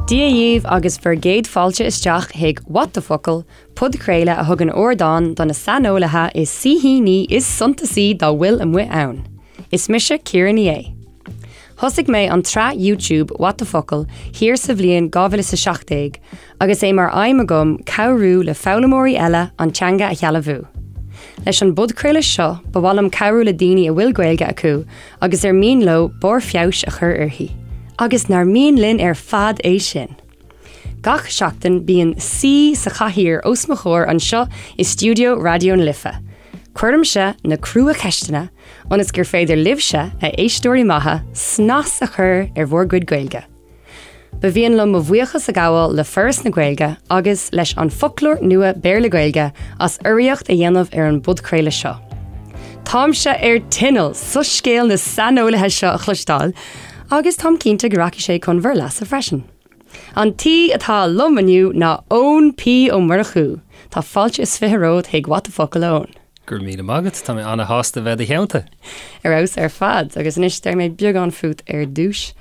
Dia dhaoibh agus bhur gcéad fáilte isteach chuig What the Focal, podchraoladh a thugann ardán do na saineolaithe is saoithíní is suntasaí dá bhfuil amuigh ann. Is mise Ciara Ní É. Thosaigh mé an tsraith YouTube What the Focal thiar sa bhliain 2017 agus é mar aidhm agam cabhrú le foghlaimeoirí eile an teanga a shealbhú. Leis an bpodchraoladh seo ba mhaith liom cabhrú le daoine a bhfuil Gaeilge acu agus ar mian leo barr feabhais a chur uirthi. Agus nár mian linn ar fad é sin! Gach seachtain bíonn saoi sa chathaoir os mo chomhair anseo i stiúideo Raidió na Life. Cuirimse na crua-cheisteanna ionas gur féidir libhse, a éisteoirí maithe, snas a chur ar bhur gcuid Gaeilge. Ba mhian liom mo bhuíochas a ghabháil le Foras na Gaeilge agus leis An Foclóir Nua Béarla-Gaeilge as urraíocht a dhéanamh ar an bpodchraoladh seo. Táimse ar tinneall soiscéal na saineolaithe seo a chloisteáil agus táim cinnte go rachaidh sé chun bhur leasa freisin. An t-aoi atá liom inniu ná Eoin P Ó Murchú. Tá fáilte is 20 romhat chuig What the Focal, a Eoin. Go raibh míle maith agat, tá mé ana-shásta bheith i do theannta. Ar fheabhas ar fad, agus anois déarfaidh mé beagán fút ar dtús.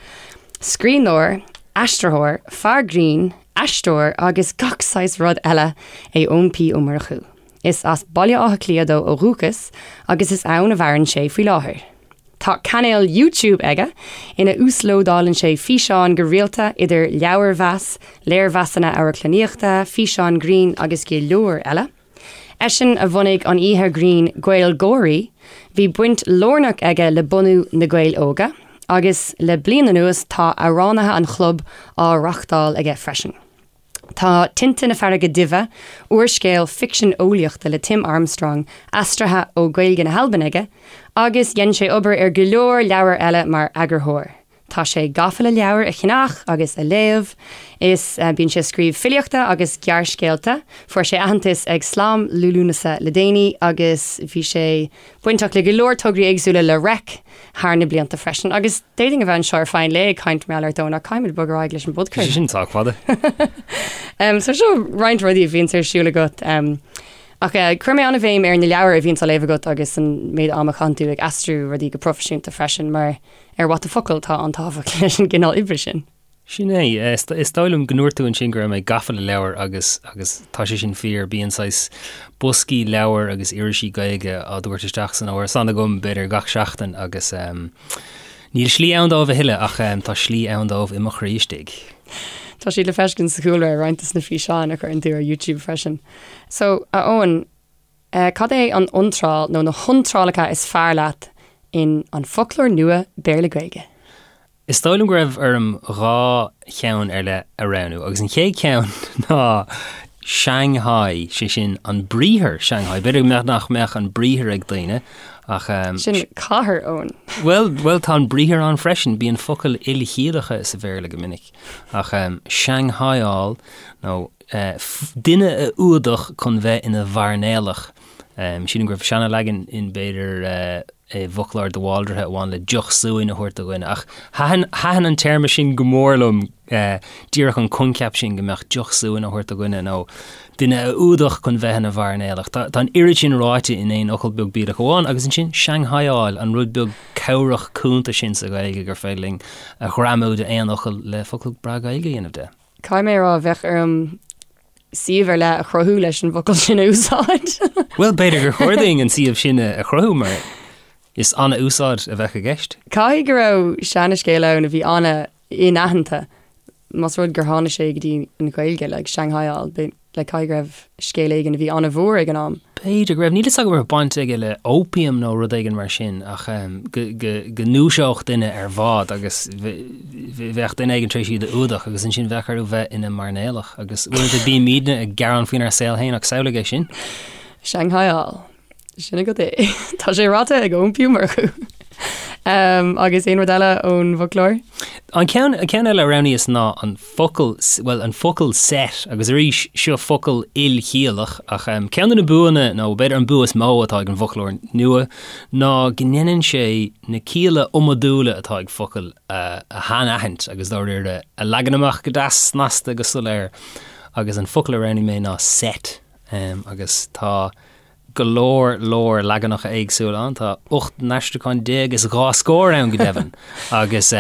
Scríbhneoir, aistritheoir, fear grinn, aisteoir agus gach saghas rud eile é Eoin P Ó Murchú. Is as Baile Átha Cliath dó ó dhúchas agus is ann a mhaireann sé faoi láthair. Tá cainéal YouTube aige ina uaslódálann sé físeáin go rialta idir leabharmheas, léirmheasanna amharclannaíochta, físeáin grinn agus go leor eile. Eisean a bhunaigh an oíche ghrinn GaelGÁIRÍ, bhí baint lárnach aige le bunú Na Gaeil Óga, agus le bliain anuas tá Amhránaithe an Chlub á reáchtáil aige freisin. Tá Tinte na Farraige Duibhe, úrscéal ficsean eolaíochta le Tim Armstrong, aistrithe ó Ghaeilge na hAlban aige, agus dhein sé obair ar go leor leabhar eile mar eagarthóir. Tá sé gafa le leabhair a cheannach agus a léamh. Is bíonn sé ag scríobh filíochta agus gearrscéalta. Fuair sé aitheantas ag Slam Liú Lúnasa le déanaí agus bhí sé bainteach le go leor tograí éagsúla le Reic thar na blianta freisin. Agus d'fhéadfainn a bheith anseo ar feadh an lae ag caint mar gheall ort Eoin ach caithfimid bogadh ar aghaidh leis an bpodchraoladh. Sin sách fada. So seo roinnt rudaí a bhíonns ar siúl agat. Ach chuir mé an-bhéim ar na leabhair a bhíonns á léamh agat agus an méid ama a chaitheann tú ag aistriú rudaí go proifisiúnta freisin mar ar What the Focal tá an-tábhacht leis an gcineál oibre sin. Sin é. Is dóigh liom go ndúirt tú ansin go raibh mé gafa le leabhair agus agus tá sé sin fíor. Bíonn saghas boscaí leabhar agus irisí Gaeilge á dtabhairt isteach san árasán agam b'fhéidir gach seachtain agus níl slí ann dóibh a thuilleadh ach tá slí ann dóibh i mo chroí istigh. Tá siad le feiscint sa chúlra ar roinnt de na físeáin a chuireann tú ar YouTube freisin. So, a Eoin, Cad é an iontráil nó na hiontrálacha is fearr leat in An Foclóir Nua Béarla-Gaeilge? Is dóigh liom go raibh orm dhá cheann ar leith a roghnú agus an chéad cheann ná Shanghai, sé sin an briathar Shanghai. B'fhéidir nach mbeadh an briathar ag daoine ach. Sin cathair, Eoin. Bhuel, bhuel tá an briathar ann freisin, bíonn focail ilchiallacha sa Bhéarla go minic. Ach Shanghaiáil nó duine a fhuadach chun bheith ina mhairnéalach. Sílim go raibh seana-leagan in b'fhéidir i bhfoclóir de Bhaldraithe a bhain le deoch suain a thabhairt do dhuine. Ach thaitin, thaitin an téarma sin go mór liom, díreach an coincheap sin go mbeadh deoch suain á thabhairt do dhuine nó duine a fhuadach chun bheith ina mhairnéalach. Tá, tá an oiread sin ráite in aon fhocal beag bídeach amháin agus ansin Shanghaiáil, an rud beag cabhrach cúnta sin sa Ghaeilge gur féidir linn a ghreamú d'aon fhocal le focal breá Gaeilge a dhéanamh de. Caithfidh mé a rá, bheadh orm suíomh ar leith a chruthú leis an bhfocal sin a úsáid. Bhuel, b'fhéidir gur chóir dúinn an suíomh sin a chruthú mar is an-úsáid a bheadh i gceist. Caithfidh go raibh seanascéal ann a bhí an-inaitheanta, más rud gur tháinig sé go dtí an Ghaeilge, like Shanghaiáil, like caithfidh go raibh scéal éigin a bhí an-mhór ag an am. B'fhéidir go raibh, níl fhios agam an raibh baint aige le opium nó rud éigin mar sin ach go ndúiseodh duine ar bhád agus bheadh duine éigin tar éis iad a fhuadach agus ansin bheadh orthu bheith ina mairnéalach agus uaireanta bímidne ag gearán faoinár saol féin ach samhlaigh é sin. Shanghaiáil. Sin agat é. Tá sé ráite ag Eoin P Ó Murchú. Agus aon rud eile ón bhfoclóir? An ceann, an ceann eile a roghnaíos ná an focal, bhuel, an focal set, agus arís, seo focal ilchiallach, ach ceann de na buanna, nó b'fhéidir an bua is mó atá ag an bhfoclóir nua, ná go ndéanann sé na cialla iomadúla atá ag focail a shainaithint agus dáiríre a leagan amach go deas snasta go soiléir. Agus an focal a roghnaigh mé ná set, agus tá. go leor leor leaganacha éagsúla ann, tá 18 n-aistriúchán is 2 scór ann go deimhin, agus.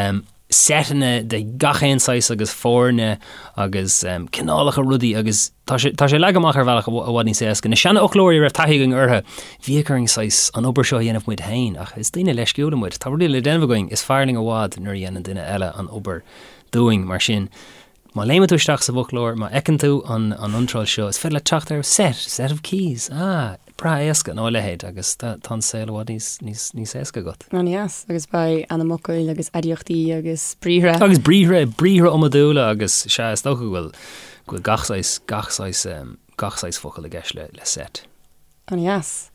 seiteanna de gach aon saghas agus foirne agus cineálacha rudaí agus tá sé tá sé leagtha amach ar bhealach i bhfad níos éasca. Na seanfhoclóirí a raibh taithí againn orthu, bhíodh orainn saghas an obair seo a dhéanamh muid féin ach is daoine leisciúla muid. Tá rudaí le déanamh againn, is fearr linn i bhfad nuair a dhéanann duine eile an obair dúinn mar sin. Má léimeann tú isteach sa bhfoclóir, má fheiceann tú an an iontráil seo, is féidir leat teacht ar set, set of keys, ah, breá éasca, nó a leithéid, agus tá an saol i bhfad níos, níos, níos éasca agat. An-deas, agus beidh ainmfhocail agus aidiachtaí agus briathra. Agus briathra, briathra iomadúla agus, sea, is dócha go bhfuil, go bhfuil gach saghas, gach saghas, gach saghas focal i gceist le, le set. An-deas.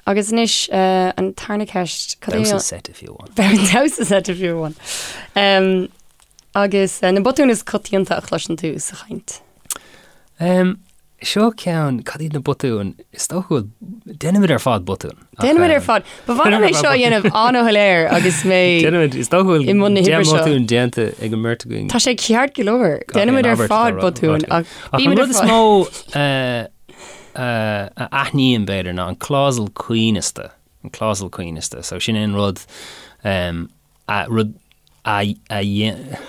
Agus anois, an tarna ceist, cad é an. Damhsa seite fiú amháin. Damhsa seite fiú amháin. Agus na botúin is coitianta a chloiseann tú sa chaint? Seo ceann, cad iad na botúin? Is dócha go bhfuil, déanaimid ar fad botúin. Déanaimid ar fad. Ba mhaith liom é seo a dhéanamh an-shoiléir agus mé Déanaimid, is dócha go bhfuil i mbun na hoibre seo. botúin déanta ag an mbeirt againn. Tá sé ceart go leor. Déanaimid ar fad botúin ach Ach an rud is mó a aithním, b'fhéidir, ná an clásal coibhneasta, an clásal coibhneasta. So sin é an rud, a, rud a, a dhéan,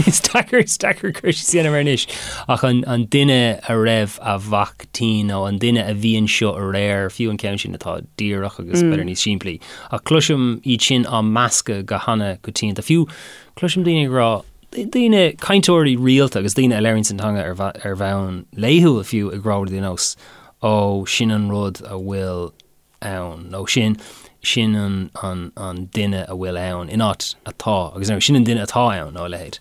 is deacair, is deacair cur síos a dhéanamh air anois, ach an, an duine a raibh a mhac tinn nó an duine a bhí anseo aréir, fiú an ceann sin atá díreach agus b'fhéidir níos simplí. Ach cloisim iad sin á meascadh go hana-choitianta. Fiú cloisim daoine ag rá, daoine, cainteoirí rialta agus daoine a labhraíonn an teanga ar bhonn laethúil fiú ag rá rudaí ar nós 'Ó, sin an rud a bhfuil ann' nó 'Sin, sin an, an, an duine a bhfuil ann' in áit 'atá' agus nó 'Sin an duine atá ann' nó a leithéid.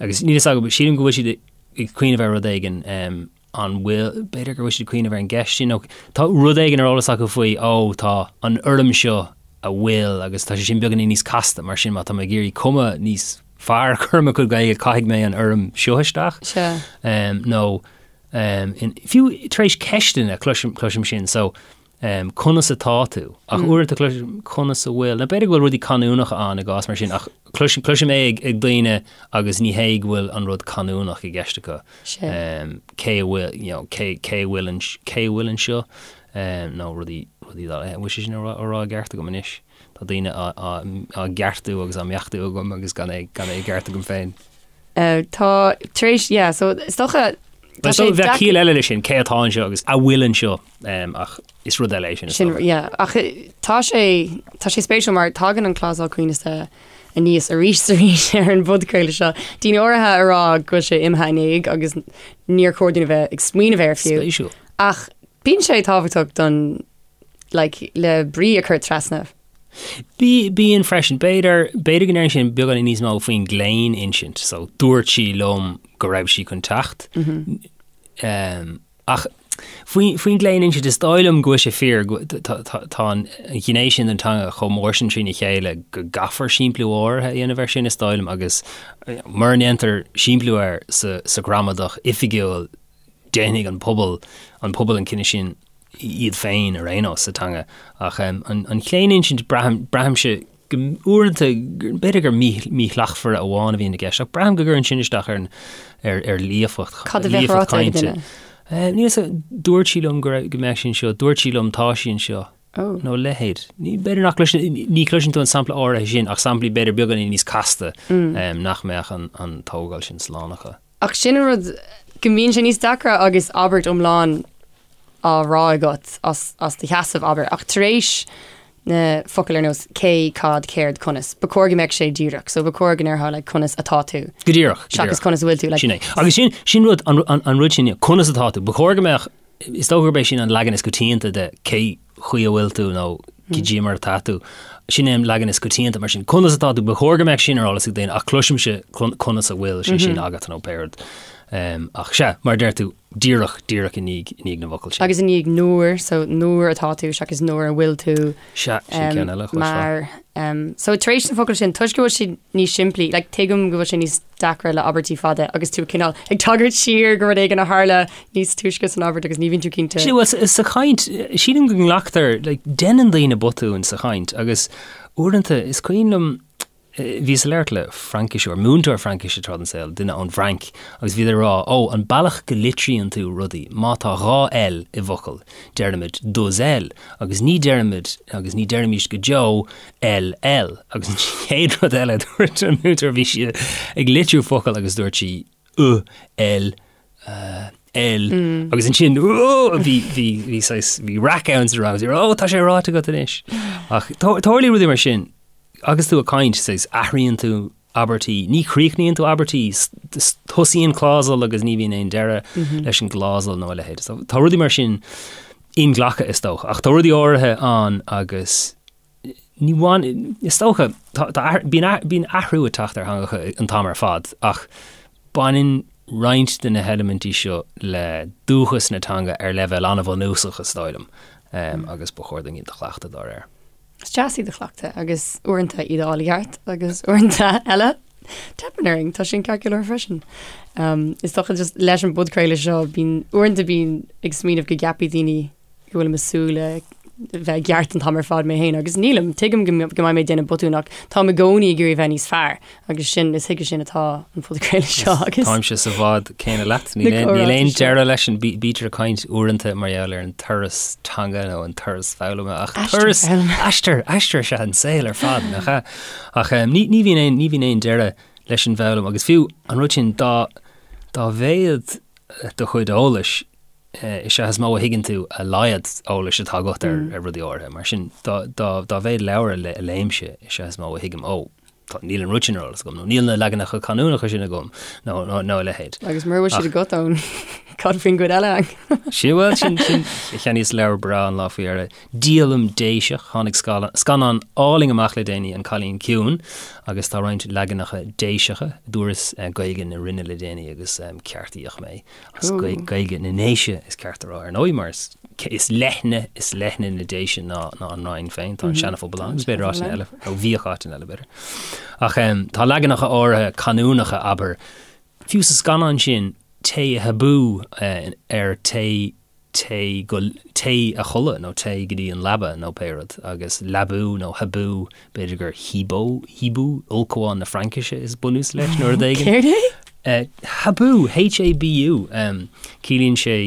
Agus níl fhios agam, sílim go bhfuil siad ag cuimhneamh ar rud éigin, an bhfuil, b'fhéidir go bhfuil siad ag cuimhneamh ar an gceist sin nó tá rud éigin ar eolas acu faoi, ó, tá an fhoirm seo a bhfuil agus tá sé sin beagáinín níos casta mar sin má tá mé ag iarraidh cuma níos fearr a chur ar mo chuid Gaeilge caithfidh mé an fhoirm seo isteach. Sea. Nó fiú tar éis ceisteanna cloisim, cloisim sin so conas atá tú? Ach uaireanta cloisim conas a bhfuil, nó b'fhéidir go bhfuil rudaí canúnacha ann i gcás mar sin ach cloisim, cloisim é ag, ag daoine agus ní hé go bhfuil an rud canúnach i gceist acu. Sea. Cé a bhfuil, you know, cé, cé a bhfuil, cé a bhfuil anseo nó rudaí, rudaí dá, an bhfuil sé sin á rá, á rá i gceart agam anois? Tá daoine á gceartú agus á mbeachtú agam agus gan é gan é i gceart agam féin. Tá tar éis, yeah, so is dócha tá sé bheadh ciall eile leis sin, cé atá anseo agus a bhfuil anseo ach is rud eile é sin. Sin, yeah, ach tá sé tá sé spéisiúil mar tagann an clásal coibhneasta aníos arís is arís ar an bpodchraoladh seo. Daoine áirithe a rá go bhfuil sé imithe in éag agus níor chóir dúinn a bheith ag smaoineamh air fiú. Spéisiúil. Ach bíonn sé tábhachtach don like, le brí a chur trasna. Bí, bíonn freisin. B'fhéidir, b'fhéidir go ndeireann sin beagáinín níos mó faoin gclaoninsint. So, dúirt sí liom go raibh sí chun teacht. Mm -hmm. um, ach faoin, faoin gclaoninsint is dóigh liom go bhfuil sé fíor tá, tá, tá an ghné sin den teanga chomh mór sin trína chéile go gcaithfear simpliú áirithe a dhéanamh air sin is dóigh liom agus mura ndéantar simpliú air sa, sa ghramadach oifigiúil déanfaidh an pobal, an pobal an cinneadh sin iad féin ar aon nós sa teanga. Ach an chlaoninsint, braithim, braithimse go uaireanta, b'fhéidir gur míshlachtmhaire amháin a bhíonn i gceist, ach braithim go gcuireann sin isteach ar ar ar líofacht, Cad a bheadh líofacht ráite ag cainte. duine? Níl 'fhios agam, dúirt sí liom go raibh, go mbeadh sí anseo, dúirt sí liom tá sí anseo. Oh. Nó a leithéid. Ní, b'fhéidir nach gcloiseann, ní chloiseann tú an sampla áirithe sin ach samplaí b'fhéidir beagáinín níos casta nach mbeadh an, an tógáil sin slán acu. Ach sin an rud, go mbíonn sé níos deacra agus abairt iomlán á rá agat as, as do sheasamh, abair. Ach tar éis na focail ar nós cé, cad, céard, conas, ba chóir go mbeadh sé díreach. So ba chóir go ndéarfá like conas atá tú. Go díreach, go Seachas díreach. conas a bhfuil tú, like. Sin é. Agus sin, sin rud, an, an, an rud sin, conas atá tú. Ba chóir go mbeadh, is dócha gurb é sin an leagan is coitianta de cé chaoi a bhfuil tú nó cad é mar atá tú. Sin é an leagan is coitianta mar sin. Conas atá tú? Ba chóir go mbeadh sin ar eolas ag daoine ach cloisimse conas a bhfuil sé sin agat nó pé rud. Ach sea, mar a deir tú, díreach, díreach i ndiaidh, i ndiaidh na bhfocal sin. Agus i ndiaidh nuair, so nuair atá tú seachas nuair a bhfuil tú. Sea, sin ceann eile a chloisfeá. Mar, so tar éis na focail sin, toisc go bhfuil siad níos simplí, like tuigim go bhfuil sé níos deacra le abairtí fada agus tú cineál ag tagairt siar go rud éigin a tharla níos túisce san abairt agus ní bhíonn tú cinnte. Sea, bhuel, sa chaint, sílim go nglactar, like, déanann daoine botúin sa chaint agus uaireanta is cuimhin liom. Bhíos ag labhairt le Frainciseoir, múinteoir Fraincise tráth den saol, duine ón bhFrainc, agus bhíodar ag rá, ó, an bealach go litríonn tú rudaí, má tá 2 L i bhfocal, deirimid deux L, agus ní deirimid, agus ní deirimís go deo L L. Agus an chéad rud eile a dúirt an múinteoir, bhí sí ag litriú focal agus dúirt sí U L L agus ansin bhí bhí bhí saghas bhí raic ann sa rang agus ó tá sé ráite agat anois. Ach tarlaíonn rudaí mar sin agus tú ag caint saghas athraíonn tú abairtí, ní chríochnaíonn tú abairtí, tosaíonn clásal agus ní bhíonn aon deireadh leis an gclásal nó a leithéid. So, tá rudaí mar sin inghlactha is dócha, ach tá rudaí áirithe ann agus Ní bhain, is dócha, tá, bíonn athrú ag teacht ar theangacha an t-am ar fad ach baineann roinnt de na heilimintí seo le dúchas na teanga ar leibhéal an-bhunúsach, is dóigh liom, agus ba chóir dúinn iad a chleachtadh dá réir. Is deas iad a chleachtadh agus uaireanta iad a fháil i gceart agus uaireanta eile teipeann orainn, tá sin ceart go leor freisin. Is dócha just leis an bpodchraoladh seo bíonn, uaireanta bím ag smaoineamh go gceapfaidh daoine go bhfuilim ag súil le bheith i gceart an t-am ar fad mé féin agus nílim, tuigim go mbeidh mé ag déanamh botún ach táim i gcónaí ag iarraidh bheith níos fearr agus sin, is chuige sin atá an podchraoladh seo agus. Táimse sa bhád céanna leat, níl aon deireadh leis an bítear ag caint uaireanta mar gheall ar an turas teanga nó an turas foghlama ach turas aistear, aistear is ea an saol ar fad nach ea? Ach ní bhíonn aon, ní bhíonn aon deireadh leis an bhfoghlaim agus fiú an rud sin dá dá mhéad do chuid eolais is ea is mó a thuigeann tú a laghad eolais atá agat ar rudaí áirithe. Mar sin, dá mhéad leabhar a léimse, is ea is mó a thuigim, ó, níl an rud sin ar eolas agam, nó níl na leaganacha canúnacha sin agam, nó a leithéid. Agus mura bhfuil siad agat ann, cad faoin gcuid eile? Sin, bhuel, sin, sin, cheannaíos leabhar breá an lá faoi dheireadh, Díolaim Déiseach, tháinig scannán álainn amach le déanaí, An Cailín Ciúin, agus tá roinnt leaganacha Déiseacha, dúras Gaeilge na Rinne le déanaí agus ceartaíodh mé. As Gaeilge na nDéise is ceart a rá ar ndóigh mar is leithne is leithne na Déise ná ná an Rinn féin, tá an Seana-Phobal ann agus b'fhéidir áiteanna eile, nó bhíodh áiteanna eile b'fhéidir. Ach tá leaganacha áirithe canúnacha, abair, fiú sa scannán sin, téigh a habú ar téigh téigh go téigh a chodladh nó téigh go dtí an leaba nó pé rud agus leabú nó habú b'fhéidir gur hibou hibou ulchabhán na Fraincise is bunús leis nó rud éigin. Céard é? Habú, H-A-B-U, ciallaíonn sé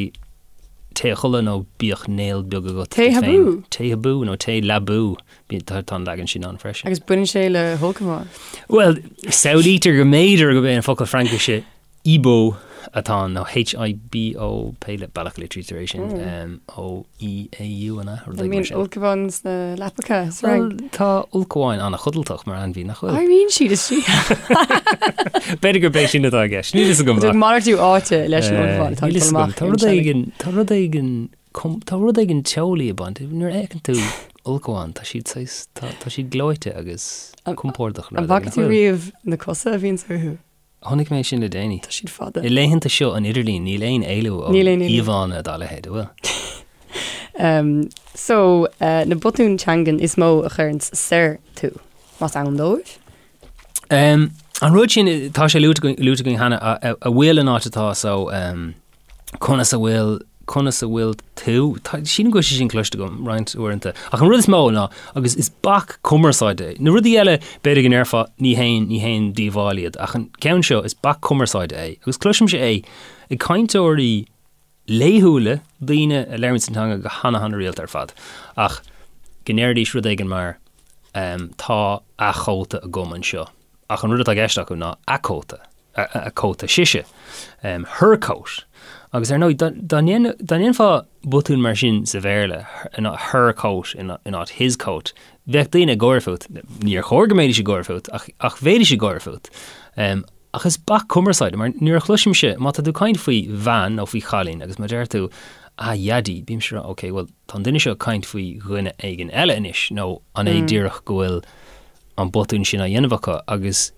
téigh a chodladh nó bíodh néal beag agat Téigh habú? Téigh habú nó téigh leabú, tá an leagan sin ann freisin. Agus baineann sé le hulchabhán? Bhuel, samhlaítear go mb'fhéidir gurb é an focal Fraincise Hibou atá ann, nó H-I-B-O, pé bealach a litrítear é sin, O-E-A-U, an ea? Rud éigin mar sin. An mbíonn ulchabháin sna leapacha sa Fhrainc? Bhuel, tá ulchabháin an-chodlatach mar ainmhí, nach bhfuil? Éiríonn siad istigh. B'fhéidir gurb é sin atá i gceist. Níl fhios agam. Tá malartú áite leis an ulchabhán atá ag dul amach. Tá rud éigin, tá rud éigin, tá rud éigin teolaí ag baint. Nuair a fheiceann tú ulchabhán, tá siad saghas, tá siad gleoite agus compordach. An bhfaca tú riamh na cosa a bhíonns orthu? Chonaic mé sin le déanaí. Tá siad fada. I laethanta seo an idirlín, níl aon éalú ó íomhánna dá leithéid, an bhfuil? Um, so, uh, na botúin teangan is mó a chuireanns soir tú, más ann dóibh? Um, an rud sin, tá sé luaite againn cheana, a, a, a bhfuil an áit atá so, um, Conas a bhfuil, conas a bhfuil tú? Tá, sílim go bhfuil sé sin cloiste agam roinnt uaireanta. Ach an rud is mó ná, agus is bac cumarsáide é. Na rudaí eile, b'fhéidir go ndéarfá, ní haon, ní haon díobháil iad, ach an ceann seo, is bac cumarsáide é. Agus cloisimse é ag cainteoirí laethúla, daoine a labhraíonn an teanga go hana hana rialta ar fad, ach go ndeiridís rud éigin mar, tá a chóta agam anseo. Ach an rud atá i gceist acu ná a cóta. a cóta sise, her coat. Agus ar ndóigh, dá ndéanfá botún mar sin sa Bhéarla, her coat in áit his coat, bheadh daoine ag gáire fút. Níor chóir go mbeidís ag gáire fút, ach bheidís ag gáire fút. Ach is bac cumarsáide, mar nuair a chloisimse, má tá tú ag caint faoi bhean nó faoi chailín agus má deir tú, a dhaidí, bímse ag rá, ok, bhuel, tá an duine seo ag caint faoi dhuine éigin eile anois, nó an é díreach go bhfuil an botún sin á dhéanamh acu agus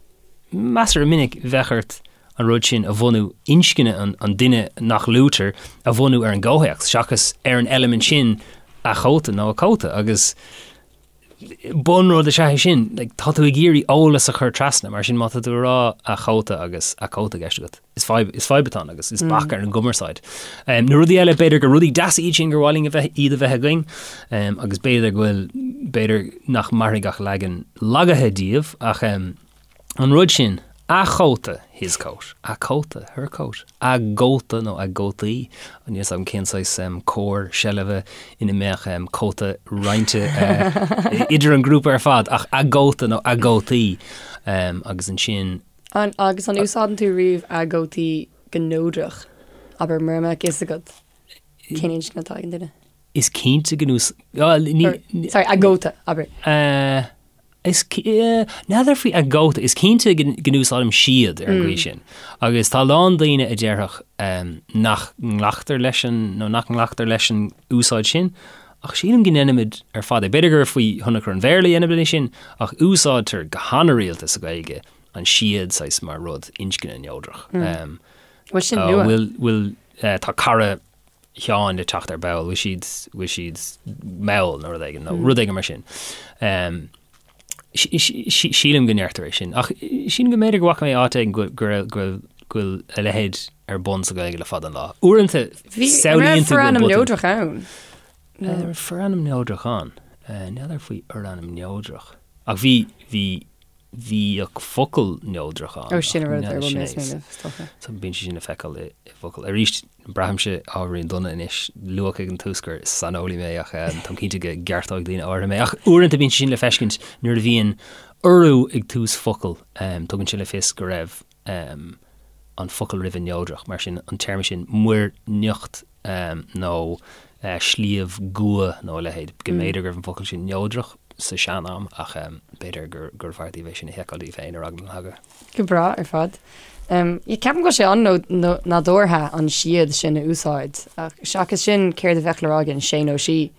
measartha minic bheadh ort an rud sin a bhunú, inscne an duine nach luaitear a bhunú ar an gcomhthéacs seachas ar an eilimint sin a chóta nó a cóta agus bunrud is ea é sin, like, tá tú ag iarraidh eolas a chur trasna, mar sin má tá tú ag rá a chóta agus a cóta i gceist agat. Is fadhb, is fadhb atá ann agus is bac ar an gcumarsáid. Na rudaí eile, b'fhéidir gur rudaí deasa iad sin gur mhaith linn a bheith, iad a bheith againn, agus b'fhéidir go bhfuil, b'fhéidir nach mairfidh ach leagan lagaithe díobh, ach. An rud sin, a chóta, his coat, a cóta, her coat, a gcóta nó a gcótaí, níl 'fhios agam cén saghas comhar seilbhe ina mbeadh cóta roinnte idir an grúpa ar fad, ach a gcóta nó a gcótaí agus ansin. An, agus an úsáideann tú riamh a gcótaí go neodrach? Abair, mura mbeadh fhios agat cén inscne atá ag an duine. Is cinnte go n-ús-, Sorry, a gcóta, abair. Is, n'fheadar faoi a gcóta, is cinnte go n-úsáidim siad ar an gcaoi sin. Agus tá a lán daoine a déarfadh nach nglactar leis an, nó nach nglactar leis an úsáid sin, ach sílim go ndéanaimid ar fad é. B'fhéidir gur faoi thionchar an Bhéarla a dhéanaimid é sin, ach úsáidtear go han-rialta sa Ghaeilge an siad saghas mar rud inscne neodrach. Bhfuil sin nua? Bhfuil, bhfuil, tá cara Sheáin le teacht ar ball, bhfuil siad, bhfuil siad mall nó rud éigin, nó rud éigin mar sin. Sílim go ndeirtear é sin. Ach sílim go mb'fhéidir go bhfaca mé áit éigin go bhfuil go bhfuil a leithéid ar bun sa Ghaeilge le fada an lá. Uaireanta samhlaíonn tú go bhfuil forainm neodrach ann. Forainm neodrach ann? N'fheadar faoi fhorainm neodrach. Ach bhí, bhí bhíodh focal neodrach ann. Ó, sin an rud ar a bhfuil mé ag smaoineamh, is dócha. So bíonn sé sin le feiceáil i bhfocail. Arís, braithimse ábhairín dona anois, luadh ag an tús gur saineolaí mé ach táim cinnte go gceartóidh daoine áirithe mé. Ach uaireanta bíonn sé sin le feiscint nuair a bhíonn urú ag tús focal, tugann sé le fios go raibh an focal roimhe neodrach, mar sin an téarma sin muir nIocht nó Sliabh gCua nó a leithéid, go mb'fhéidir go raibh an focal sin neodrach sa sean-am ach b'fhéidir gurbh fhearr daoibh é sin a sheiceáil daoibh féin ar eagla na heagla. Go breá ar fad. Ceapaim go bhfuil sé an-nádúrtha an siad sin a úsáid ach seachas sin céard a bheadh le rá againn, sé nó sí?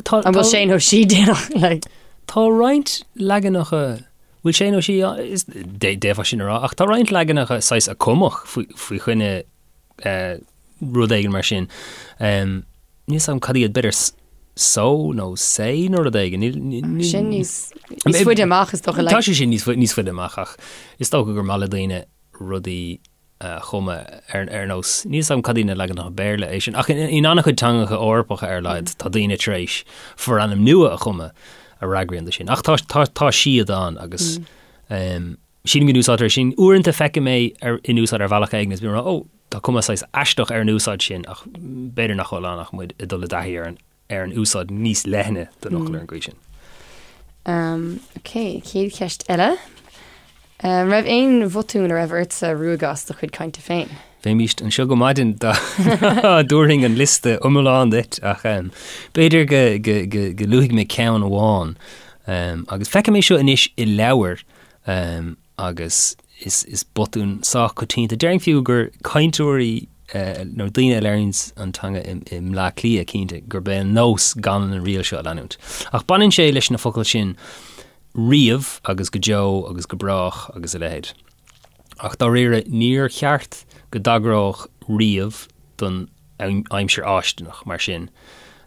An bhfuil sé nó sí déanach? Like? Tá roinnt leaganacha Bhfuil sé nó sí, d'fhéadfá sin a rá, ach tá roinnt leaganacha saghas a cumadh faoi choinne rud éigin mar sin. Níl 'fhios agam cad iad, b'fhéidir so nó sé nó rud éigin. Sin níos faide amach is dócha. Tá sé sin níos faide amach ach is dócha gur maith le daoine rudaí a chumadh ar nós, níl 'fhios agam cad iad na leaganacha Béarla é sin, ach in an-chuid teangacha Eorpacha ar a laghad tá daoine tar éis forainm nua a chumadh a fhreagraíonn do sin. Ach tá, tá, tá siad ann agus sílim go n-úsáidtear é sin. Uaireanta feicim é ar, in úsáid ar bhealach éigin is bím ag rá, ó, tá cuma saghas aisteach ar an úsáid sin ach b'fhéidir nach bhfuil ann ach muid ag dul i dtaithí ar an ar an úsáid níos leithne den fhocal ar an gcaoi sin. Um, ok, chéad cheist eile. An raibh aon bhotún a raibh ortsa ruaigeadh as do chuid cainte féin? Bheimíst anseo go maidin dá dtabharfainn an liosta iomlán duit ach um, b'fhéidir go, go, go, go luafaidh mé ceann amháin. Um, agus feicim é seo anois i leabhair um, agus is, is botún sách coitianta. Déarfainn fiú gur cainteoirí nó daoine a labhraíonns an teanga i, i mBleá Cliath cinnte gurb é an nós gan an riail seo a leanúint. Ach baineann sé leis na focail sin riamh agus go deo agus go brách agus a leithéid. Ach dáiríre níor cheart go dtagródh riamh don aimsir fháistineach mar sin.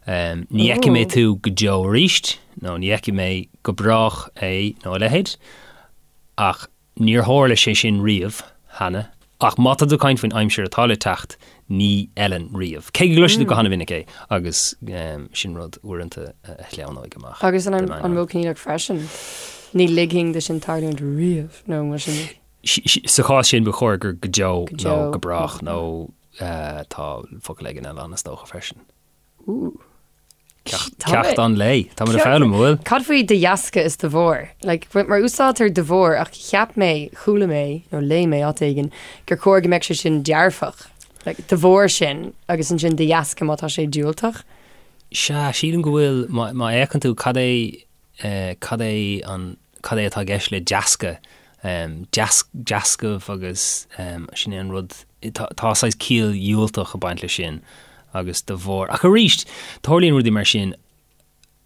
Ní fheicfidh mé tú go deo arís, nó ní fheicfidh mé go brách é nó a leithéid, ach níor tharla sé sin riamh cheana. Ach má tá tú ag caint faoin aimsir atá le teacht, ní fheileann riamh. Cé go gcloisfidh tú go han-mhinic é, agus sin rud uaireanta a shleamhnóidh amach. Agus an modh coinníollach freisin, ní ligfinn do sin tarlúint riamh, nó mar sin. Sa chás sin ba chóir gur go deo nó go brách nó Tá focal éigin eile ann is dócha freisin. Ooh. Ceacht an lae. Tá muid ag foghlaim, an bhfuil? Cad faoi de dheasca is de bharr? Like, mar úsáidtear de bharr ach cheap mé, chuala mé, nó léigh mé áit éigin, gur chóir go mbeadh sé sin dearfach. Like, de bharr sin agus ansin de dheasca má tá sé diúltach. Sea, sílim go bhfuil, má fhéachann tú cad é cad é an, cad é atá i gceist le deasca, deascaibh agus sin é an rud, tá saghas ciall dhiúltach ag baint leis sin agus de bharr, ach arís, tarlaíonn rudaí mar sin,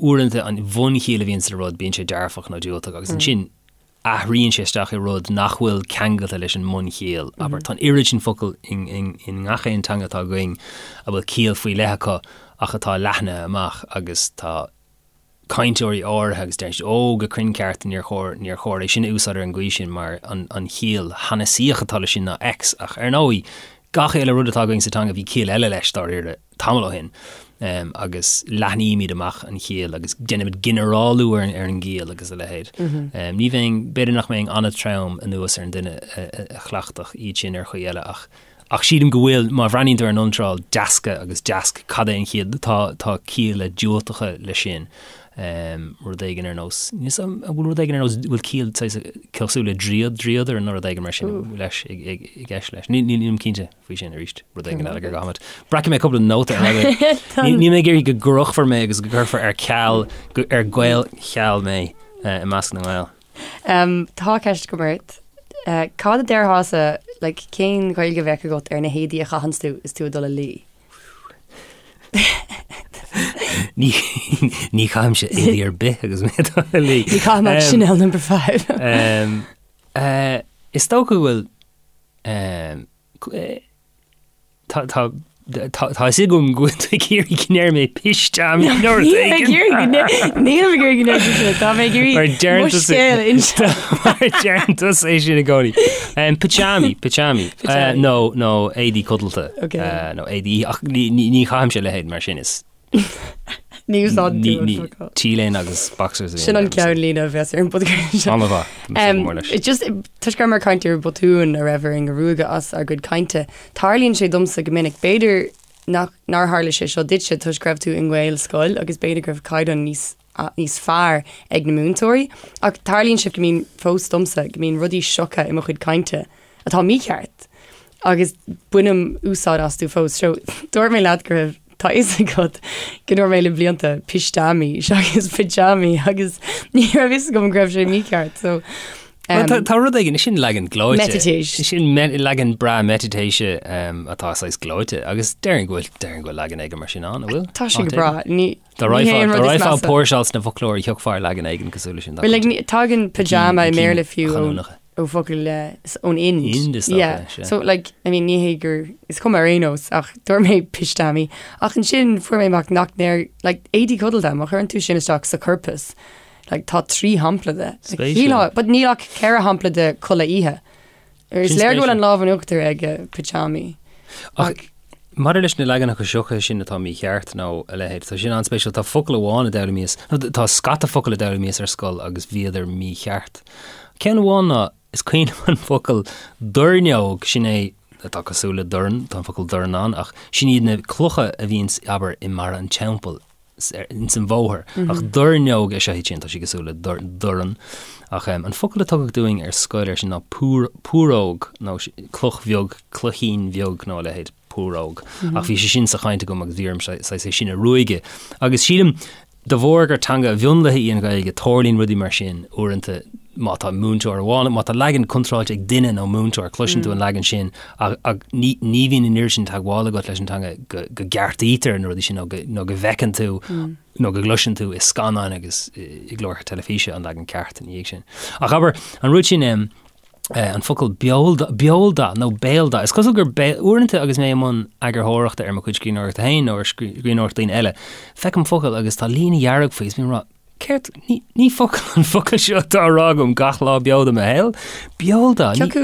uaireanta an bhunchiall a bhíonn sa rud, bíonn sé dearfach nó diúltach agus ansin athraíonn sé isteach i rud nach bhfuil ceangailte leis an mbunchiall. Abair, tá an oiread sin focal i ngach aon teanga atá againn a bhfuil ciall faoi leith acu ach atá leathnaithe amach agus tá cainteoirí áirithe agus deir siad, Ó, go cruinn ceart, níor chóir, níor chóir é sin a úsáid ar an gcaoi sin mar an, an chiall shanasaíoch atá leis sin ná X ach ar ndóigh. Gach uile rud atá againn sa teanga, bhí ciall eile leis, dáiríre, tamall ó shin, agus leathnaímid amach an chiall agus déanaimid ginearálú ar an gciall agus a leithéid. Ní bheinn, b'fhéidir nach mbeinn an-trom anuas ar an duine a chleachtfadh iad sin ar chaoi eile ach ach sílim go bhfuil, má bhreathnaíonn tú ar an iontráil deasca agus deasc, cad é an chiall, tá tá cialla diúltacha leis sin. Rud éigin ar nós, níl 'fhios a'm, an bhfuil rud éigin ar nós, bhfuil ciall saghas cosúil le dríod, dríodar nó rud éigin mar sin leis i gceist leis. Nílim cinnte faoi sin arís, rud éigin eile gur gá. Breacfaidh mé cúpla nóta ar aghaidh. Níl mé ag iarraidh go gcrochfar mé agus go gcuirfear ar ceal, ar Gaelcheal mé i measc na nGael. Tá ceist agam ort. Cad a déarfása, like, cén Ghaeilge a bheadh agat ar na héadaí a chaitheanns tú is tú ag dul a luí? Ní ní chaithimse éadaí ar bith agus mé ag dul a luí. Ní chaithim ach Chanel number 5. Is dócha go bhfuil Tá tá tá tá fhios agam go bhfuil tú ag iarraidh go ndéarfaidh mé pisteamaí nó rud éigin. Nílim ag iarraidh go ndéarfaidh tú sin, tá mé ag iarraidh Mar deireann mo tusa- scéal a inse. Mar deireann tusa é sin i gcónaí. Um, Pyjamaí, pyjamaí. Pyjamaí. Uh, nó nó éadaí codlata. Ok. Uh, nó éadaí ach ní ní ní chaithimse a leithéid mar sin is Ní úsáideann tú an Ní focal. T-léine agus boxers. Sin an ceannlíne a bheas ar an bpodchraoladh seo. An-mhaith. Um, just toisc go rabhamar ag caint ar bhotúin a raibh orainn a ruaigeadh as ár gcuid cainte, tarlaíonn sé domsa go minic, b'fhéidir nach nár tharla sé seo duitse toisc go raibh tú i nGaelscoil agus b'fhéidir go raibh caighdeán níos níos fearr ag na múinteoirí, ach tarlaíonn sé go mbíonn fós domsa go mbíonn rudaí sioctha i mo chuid cainte atá mícheart agus bainim úsáid astu fós. So, dúirt mé leat go raibh, tá fhios agat go ndúirt mé le blianta pisteamaí seachas pyjamaí agus ní raibh fhios agam go raibh sé mícheart. So, um, tá, tá rud éigin, sin leagan gleoite. Meititéis. Sin me, leagan breá meititéise um, atá saghas gleoite agus déarfainn go bhfuil déarfainn go bhfuil leagan éigin mar sin ann, an bhfuil? Tá sé go breá. Ní Dá raghfá ag póirseáil sna foclóirí thiocfá ar leagan éigin cosúil leis sin. Well, like, tagann pyjama i mBéarla fiú ó focal ón Ind. Ind is dócha, Yeah. sea. So, like, I mean, ní hé gur, is cuma ar aon nós, ach dúirt mé pisteamaí. Ach ansin fuair mé amach nach ndeir, like, éadaí codlata, má chuireann tú sin isteach sa corpus, like, tá 3 shampla de. Like, Spéisiúil. shílfeá, but níl ach 4 shampla de culaith oíche. Is Sin léir go bhfuil spéisiúil. an lámh in uachtar ag pyjamaí. Ach maidir leis na leaganacha sioctha sin atá mícheart nó a leithéid, tá sin an-spéisiúil. Tá focal amháin a d'fhoghlaimíos, nó tá scata focal a d'fhoghlaimíos ar scoil agus bhíodar mícheart. Ceann amháin ná, is cuimhin liom an focal doirneog, sin é atá cosúil le dorn, tá an focal dorn ann, ach sin iad na clocha a bhíonns, abair, i mbarra an teampaill. ins an bhóthar. Ach doirneog is ea iad sin, tá sé cosúil le dorn. Ach an focal a tugadh dúinn ar scoil air sin ná púróg nó cloch bheag, cloichín bheag nó a leithéid, púróg. Ach bhí sé sin sa chaint agam agus bhí orm saghas é sin a ruaigeadh. Agus sílim, de bharr gur teanga mhionlaithe í an Ghaeilge, tarlaíonn rudaí mar sin uaireanta má tá múinteoir amháin, má tá leagan contráilte ag duine nó múinteoir, cloiseann tú an leagan sin ach ní bhíonn an oiread sin teagmhála agat leis an teanga go gceartaítear na rudaí sin nó go bhfeiceann tú nó go gcloiseann tú i scannáin agus i gcláracha teilifíse an leagan ceart ina dhiaidh sin. Ach abair, an rud sin, an focal beoldath nó béaldath, is cosúil gur uaireanta agus mé i mbun eagarthóireachta ar mo chuid scríbhneoireachta féin nó ar scríbhneoireacht daoine eile, feicim focal agus tá líne dhearg faoi is bím ag rá, Céard? Ní, ní focal an focal seo atá á rá agam gach lá beo de mo shaol. Beoldath. Cé acu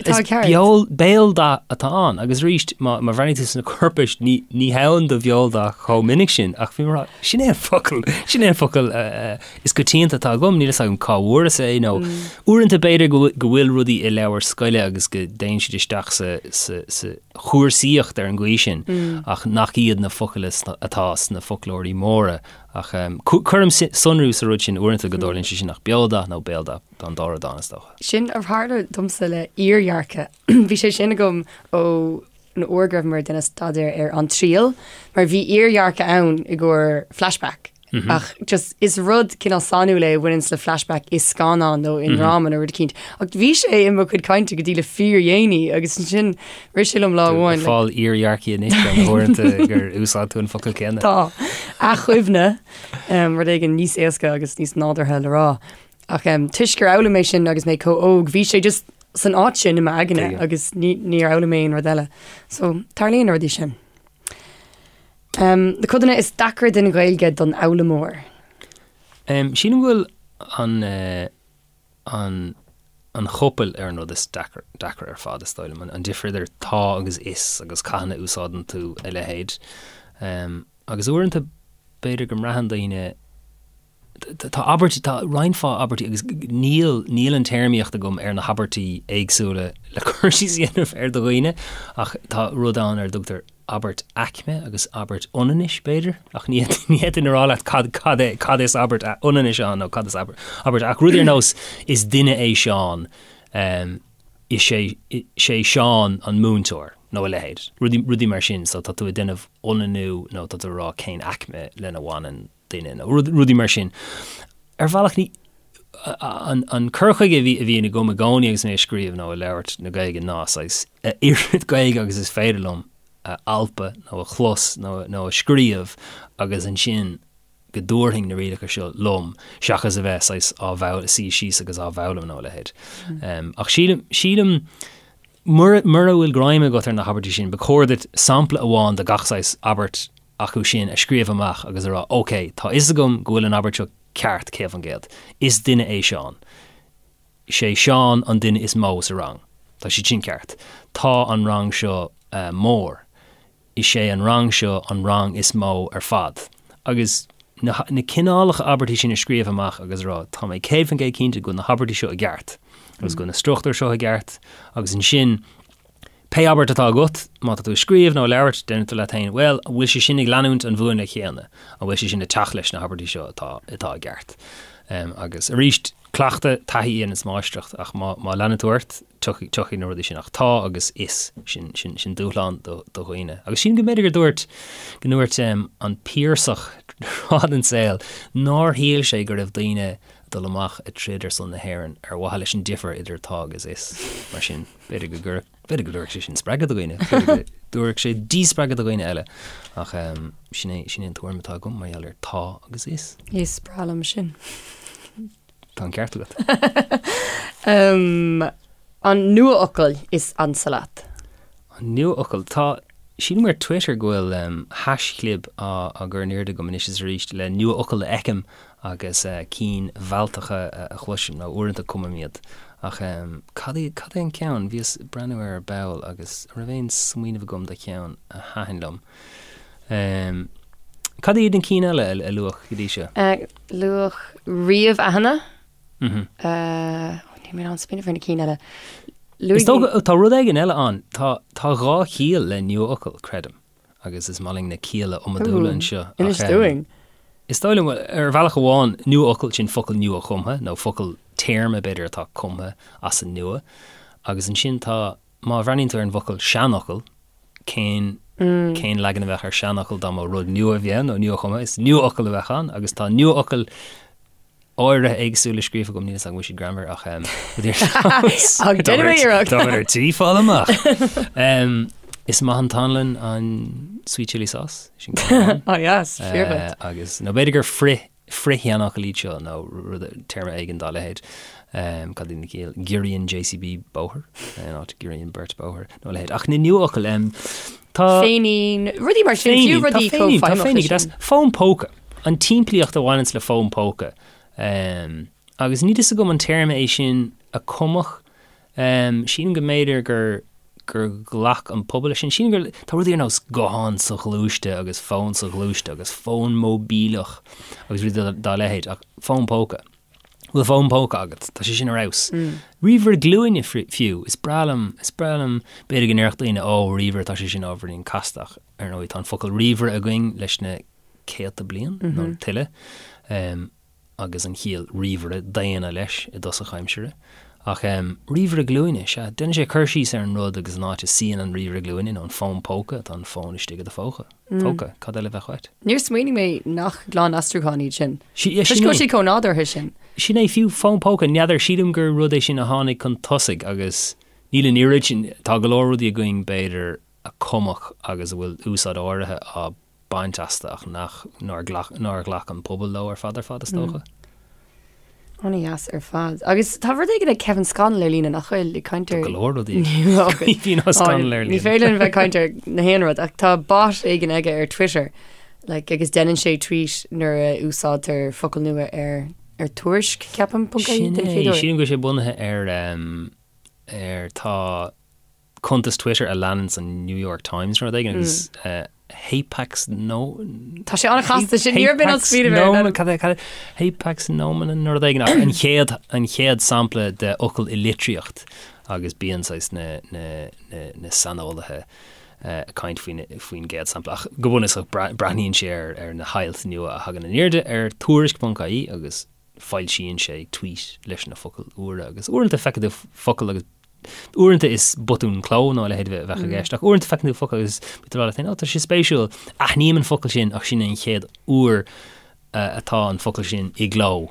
atá Is ceart? beol, béaldath atá ann. Agus arís, má, má bhreathnaíonn tú sna corpais, ní, ní hann do bheoldath chomh minic sin. Ach bhí mé ag rá, sin é an focal, sin é an focal eh, eh, is coitianta atá agam, níl fhios agam cá bhfuaireas é nó uaireanta b'fhéidir go bhfuil, go bhfuil rudaí i leabhair scoile agus go dtéann siad isteach sa, sa, sa chúrsaíocht ar an gcaoi sin, ach nach iad na focail atá sna foclóirí móra. Ach cuirim sonrú sa rud sin uaireanta go dtarlaíonn sé sin ach beoldath nó béaldath, tá an dá rud ann is dócha. Sin a tharla domsa le iardhearcadh. Bhí sé sin agam ó an uair go rabhamar ag déanamh staidéar ar An Triail, mar bhí iardhearcadh ann i gcomhair flashback. Ach just is rud cineál sainiúil é a bhaineanns le flashback i scannán nó i ndráma nó rud eicínt. Ach bhí sé i mo chuid cainte go dtí le fíordhéanaí agus ansin Rith sé liom lá amháin. Ag fáil iardhearcaí anois ar na huaireanta gur úsáid tú an focal céanna. Tá. Athchuimhne, rud éigin níos éasca agus níos nádúrtha le rá. Ach toisc gur fhoghlaim mé sin agus mé chomh óg, bhí sé just san áit sin i m'aigne agus níor fhoghlaim mé aon rud eile. So, tarlaíonn na rudaí sin. Na codanna is deacra den Ghaeilge don fhoghlaimeoir. Sílim go bhfuil an. an. an chopail ar an rud is deacra ar fad, is dóigh liom, an difear idir tá agus is agus cathain a úsáideann tú a leithéid. Agus uaireanta b'fhéidir go mbraitheann daoine, tá abairt, tá roinnt mhaith abairtí agus níl, níl an téarmaíocht agam ar na habairtí éagsúla le cur síos a dhéanamh ar do dhaoine ach tá rud ann ar a dtugtar abairt aicme agus abairt ionannais, b'fhéidir, ach ní fhéadfainn a rá leat cad, cad é, cad is abairt ionannais ann nó cad is abairt, abairt, ach rud ar nós is duine é Seán, is é, sé Seán an múinteoir nó a leithéid, rudaí, rudaí mar sin, so tá tú ag déanamh ionannú nó tá tú ag rá cén aicme lena bhaineann duine nó rudaí mar sin. Ar bhealach ní, an, an cur chuige a bhí, a bhíonn agam i gcónaí agus mé ag scríobh nó ag labhairt na Gaeilge ná saghas a oiread Gaeilge agus is féidir liom a alpadh nó a chlos nó, nó a scríobh agus ansin go dtabharfainn na rialacha seo liom seachas a bheith saghas á bhfoghlaim, suí síos agus á bhfoghlaim nó a leithéid. Mm. Ach sílim, sílim mura, mura bhfuil greim agat ar na habairtí sin, ba chóir duit sampla amháin de gach saghas abairt acu sin a scríobh amach agus a rá, OK, tá fhios agam go bhfuil an abairt seo ceart, 100%. Is duine é Seán. Sé Seán an duine is mó sa rang. Tá siad sin ceart. Tá an rang seo mór. Is é an rang seo an rang is mó ar fad. Agus na cineálacha abairtí sin a scríobh amach agus a rá, tá mé 100% cinnte go bhfuil na habairtí seo i gceart agus go bhfuil na struchtúir seo i gceart agus ansin Pé abairt atá agat, má tá tú ag scríobh nó ag labhairt, déanfaidh tú leat féin, bhuel, an bhfuil sé sin ag leanúint an mhúnla chéanna? An bhfuil sé sin ag teacht leis na habairtí seo atá, atá i gceart? Agus arís, cleachtadh, taithí a dhéananns máistreacht, ach má, má leanann tú ort, tiocfaidh, tiocfaidh na rudaí sin. Ach tá agus is, sin, sin, sin dúshlán do, do dhaoine. Agus sílim go mb'fhéidir gur dúirt, go ndúirt an Piarsach tráth den saol nár shíl sé go raibh daoine ag dul amach ag troid ar son na hÉireann ar mhaithe leis an difear idir tá agus is. Mar sin. B'fhéidir go gcuirfeadh, b'fhéidir go dtabharfadh sé sin spreagadh do dhaoine, b'fhéidir go dtabharfadh sé díspreagadh do dhaoine eile. Ach sin é, sin é an tuairim atá agam mar gheall ar tá agus is. Is breá liom sin. Tá an ceart agat. An nuafhocal is ansa leat? An nuafhocal? Tá, sílim ar Twitter go bhfuil haischlib á gcur in airde agam anois is arís le nuafhocail a fheicim agus cinn mhealltacha a chloisim, nó uaireanta cumaim iad. Ach cad é, cad é an ceann? Bhíos ag breathnú air ar ball agus an raibh aon smaoineamh agam do cheann a thaitin liom? Cad iad na cinn eile a luadh go dtí seo? Luadh ríomh-aithne. Níl mé in ann smaoineamh ar na cinn eile. Is dócha, tá rud éigin eile ann. Tá, tá dhá chiall le nuafhocal, creidim. agus is maith linn na cialla iomadúla anseo. Inis dúinn. Is dóigh liom, ar bhealach amháin, nuafhocal, sin focal nua-chumtha, nó focal téarma, b'fhéidir, atá cumtha as an nua. Agus ansin tá, má bhreathnaíonn tú ar an bhfocal seanfhocal, cén, cén leagan a bheadh ar seanfhocal dá mba rud nua a bhí ann, nó nua-chumtha, is nuafhocal a bheadh ann, agus tá nuafhocail áirithe éagsúla scríofa agam, níl a fhios agam an bhfuil siad greannmhar ach Ach déanfaidh mé iarracht. Tá ar tí fáil amach. Is maith an t-anlann an sweet chili sauce. Sin ceann amháin. Oh yes, fíor dhuit. Agus nó b'fhéidir gur frith frith-sheanfhocal iad seo nó rud téarma éigin dá leithéid. Cad iad na ciall? Giorraíonn JCB bóthar in áit giorraíonn beirt bóthar nó a leithéid. Ach na nuafhocail tá Féinín, rudaí mar sin, fiú rudaí chomh feidhmeach leis sin. Fón póca. An tsimplíocht a bhaineanns le fón póca. Agus níl fhios agam an téarma é sin a cumadh. Sílim go mb'fhéidir gur gur ghlac an pobal leis sin. Sílim gur tá rudaí ar nós guthán soghluaiste agus fón soghluaiste agus fón móibíleach agus rudaí dá leithéid ach fón póca. Bhfuil fón póca agat? Tá sé sin ar fheabhas. Ríomhaire glúine fiú. Is breá liom, is breá liom, b'fhéidir go ndéarfadh daoine, ó, ríomhaire, tá sé sin ábhairín casta ach ar ndóigh tá an focal ríomhaire againn leis na céadta bliain nó tuilleadh, agus an chiall ríomhaire daonna leis i dtosach aimsire. Ach ríomhaire glúine, sea, déanann sé cur síos ar an rud agus an áit a suíonn an ríomhaire glúine nó an fón póca, tá an fón istigh i do phóca. Póca, cad eile a bheadh uait? Níor smaoinigh mé nach glan-aistriúcháin iad sin. Toisc go bhfuil siad chomh nádúrtha sin. Sin é, fiú fón póca, n'fheadar, sílim gur rud é sin a tháinig chun tosaigh agus níl an oiread sin, tá go leor rudaí againn b'fhéidir a cumadh agus a bhfuil úsáid áirithe á baint astu ach nach, nár ghlac, nár ghlac an pobal leo ar fad ar fad, is dócha. An-dheas ar fad. Agus tá rud éigin ag Kevin Scannell ar líne nach bhfuil ag caint ar. Tá go leor rudaí ag Caoimhín Ó Scanaill ar líne. Ní féidir linn bheith ag caint ar na haon rud ach tá bot éigin aige ar Twitter like, agus déanann sé tweet nuair a úsáidtear focal nua ar. Ar Tuairisc, ceapaim, ponc ie Sin den é, chéad uair. sílim go bhfuil sé bunaithe ar ar tá cuntas Twitter a leananns an New York Times nó rud éigin agus Hapax no Tá sé an-chasta sin, ní raibh mé in ann smaoineamh air, Nomen, cad é, cad é, Hapax Nomen nó rud éigin ach an chéad, an chéad sampla de fhocal i litríocht agus bíonn saghas na, na, na, na saineolaithe ag caint faoin, faoin gcéad sampla ach go bunúsach breathnaíonn sé ar, ar na hailt nua a thagann in airde ar tuairisc.ie agus foilsíonn sé tweet leis na focail úra agus uaireanta feiceann tú focal agus uaireanta is botún cló nó a leithéid a bheadh i gceist ach uaireanta feiceann tú focal agus bíonn tú ag rá leat féin, "Ó, tá sé spéisiúil, aithním an focal sin ach sin é an chéad uair atá an focal sin i gcló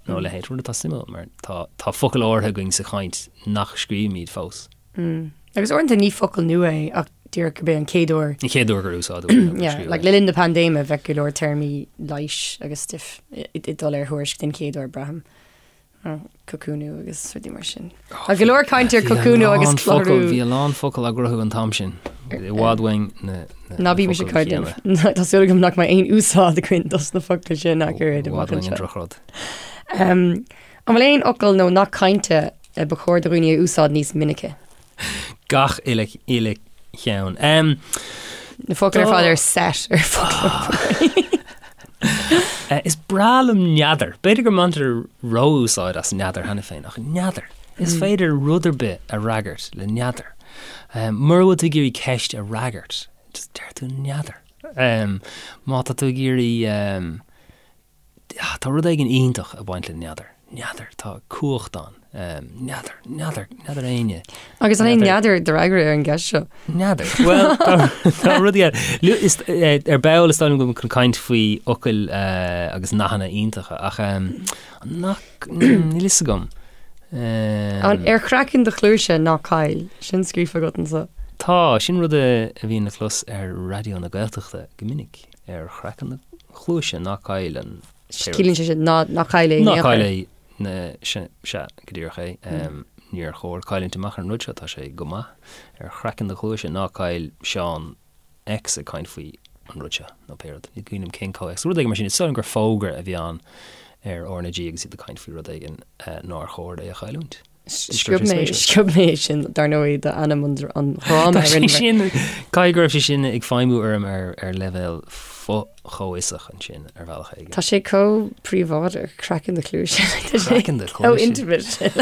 nó a leithéid. Rud atá suimiúil mar tá tá focail áirithe againn sa chaint nach scríobhaimid fós. Agus uaireanta ní focal nua é ach díreach gurb é an chéad uair. An chéad uair gur úsáideadh é nó gur Yeah, scríobhadh like é. le linn na paindéime bheadh go leor téarmaí leighis agus stuif ag dul ar Thuairisc den chéad uair, braithim. Cocúnú agus rudaí mar sin. Tá go leor caint ar Bhí a cocúnú agus lán focal, clárú. bhí a lán focal á gcruthú an t-am sin. I bhfad uainn na, na, Ná na bímis ag focail caint. chéanna. Tá súil agam nach mbeidh aon úsáid againn dos na focail sin ach oiread I amach bhfad uainn an anseo. drochrud. Um, an bhfuil aon fhocal nó nath cainte a ba chóir do dhaoine a úsáid níos minice? Gach uile, uile cheann. Um, Na focail ar fad ar set ar foclóir. Eh, is breá liom n'fheadar. B'fhéidir go mbaintear ró-úsáid as n'fheadar cheana féin, ach n'fheadar. Is féidir rud ar bith a fhreagairt le n'fheadar. Um, mura bhfuil tú ag iarraidh ceist a fhreagairt, just deir tú n'fheadar. Um, má tá tú ag iarraidh um, Tá rud éigin iontach ag baint le n'fheadar. N'fheadar. Tá cumhacht ann. N'fheadar. N'fheadar. N'fheadar éinne. Agus an é n'fheadar do fhreagra ar an gceist seo? N'fheadar. Bhuel, tá rudaí eile. Ar ball is dóigh liom go bhfuil chun caint faoi fhocail agus nathanna iontacha ach nach, níl fhios agam. An ar chraiceann do chluaise ná caill? Sin scríofa agat anseo. Tá, sin rud a bhíonn le clos ar Raidió na Gaeltachta go minic. Ar chraiceann do chluaise ná caill an pé rud. Ciallaíonn sé sin ná ná caill é in Ná aon chor. caill é na sea, sea, go díreach é. Níor chóir cailliúint amach ar an rud seo, tá sé go maith. Ar chraiceann do chluaise ná caill Seán X ag caint faoi an rud seo, nó pé rud. Ní cuimhin liom cén comhthéacs. Rud éigin mar sin, is dóigh liom gur fógra a bhí ann ar RnaG agus iad ag caint faoi rud éigin nár chóir é a chailliúint. Sciob mé, sciob mé sin dar ndóigh d'ainm an dhráma Tá sé sin, caithfidh go raibh sé sin ag feidhmiú orm ar ar leibhéal fo-chomhfhiosach ansin ar bhealach éigin. Tá sé chomh príobháideach, craiceann do chluaise. Craiceann do chluaise. Chomh intimate sin.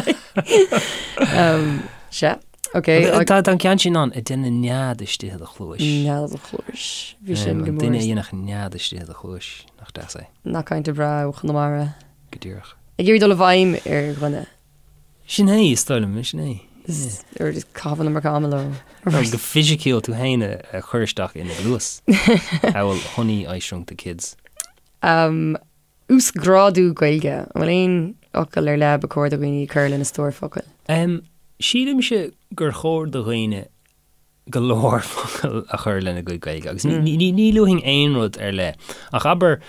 Sea, ok. Tá an ceann sin ann, ag déanamh nead istigh i do chluais. Nead i do chluais. Bhí sin go An mór. duine a dhéanfadh nead istigh i do chluais, nach deas é. Nath cainte breá ó Chonamara. Go díreach. Ag iarraidh dul i bhfeidhm ar dhuine. Sin é, is dóigh liom, sin é. Is ar just caitheamh an iomarca ama leo. Nó go fisiciúil tú féin a chur isteach ina gcluas. Amhail Honey, I Shrunk the Kids. Um, uasghrádú Gaeilge. An bhfuil aon fhocal ar leith ba chóir do dhaoine cur lena stór focal? Um, sílimse gur chóir do dhaoine go leor focal a chur lena gcuid Gaeilge agus ní luafainn aon rud ar leith ach abair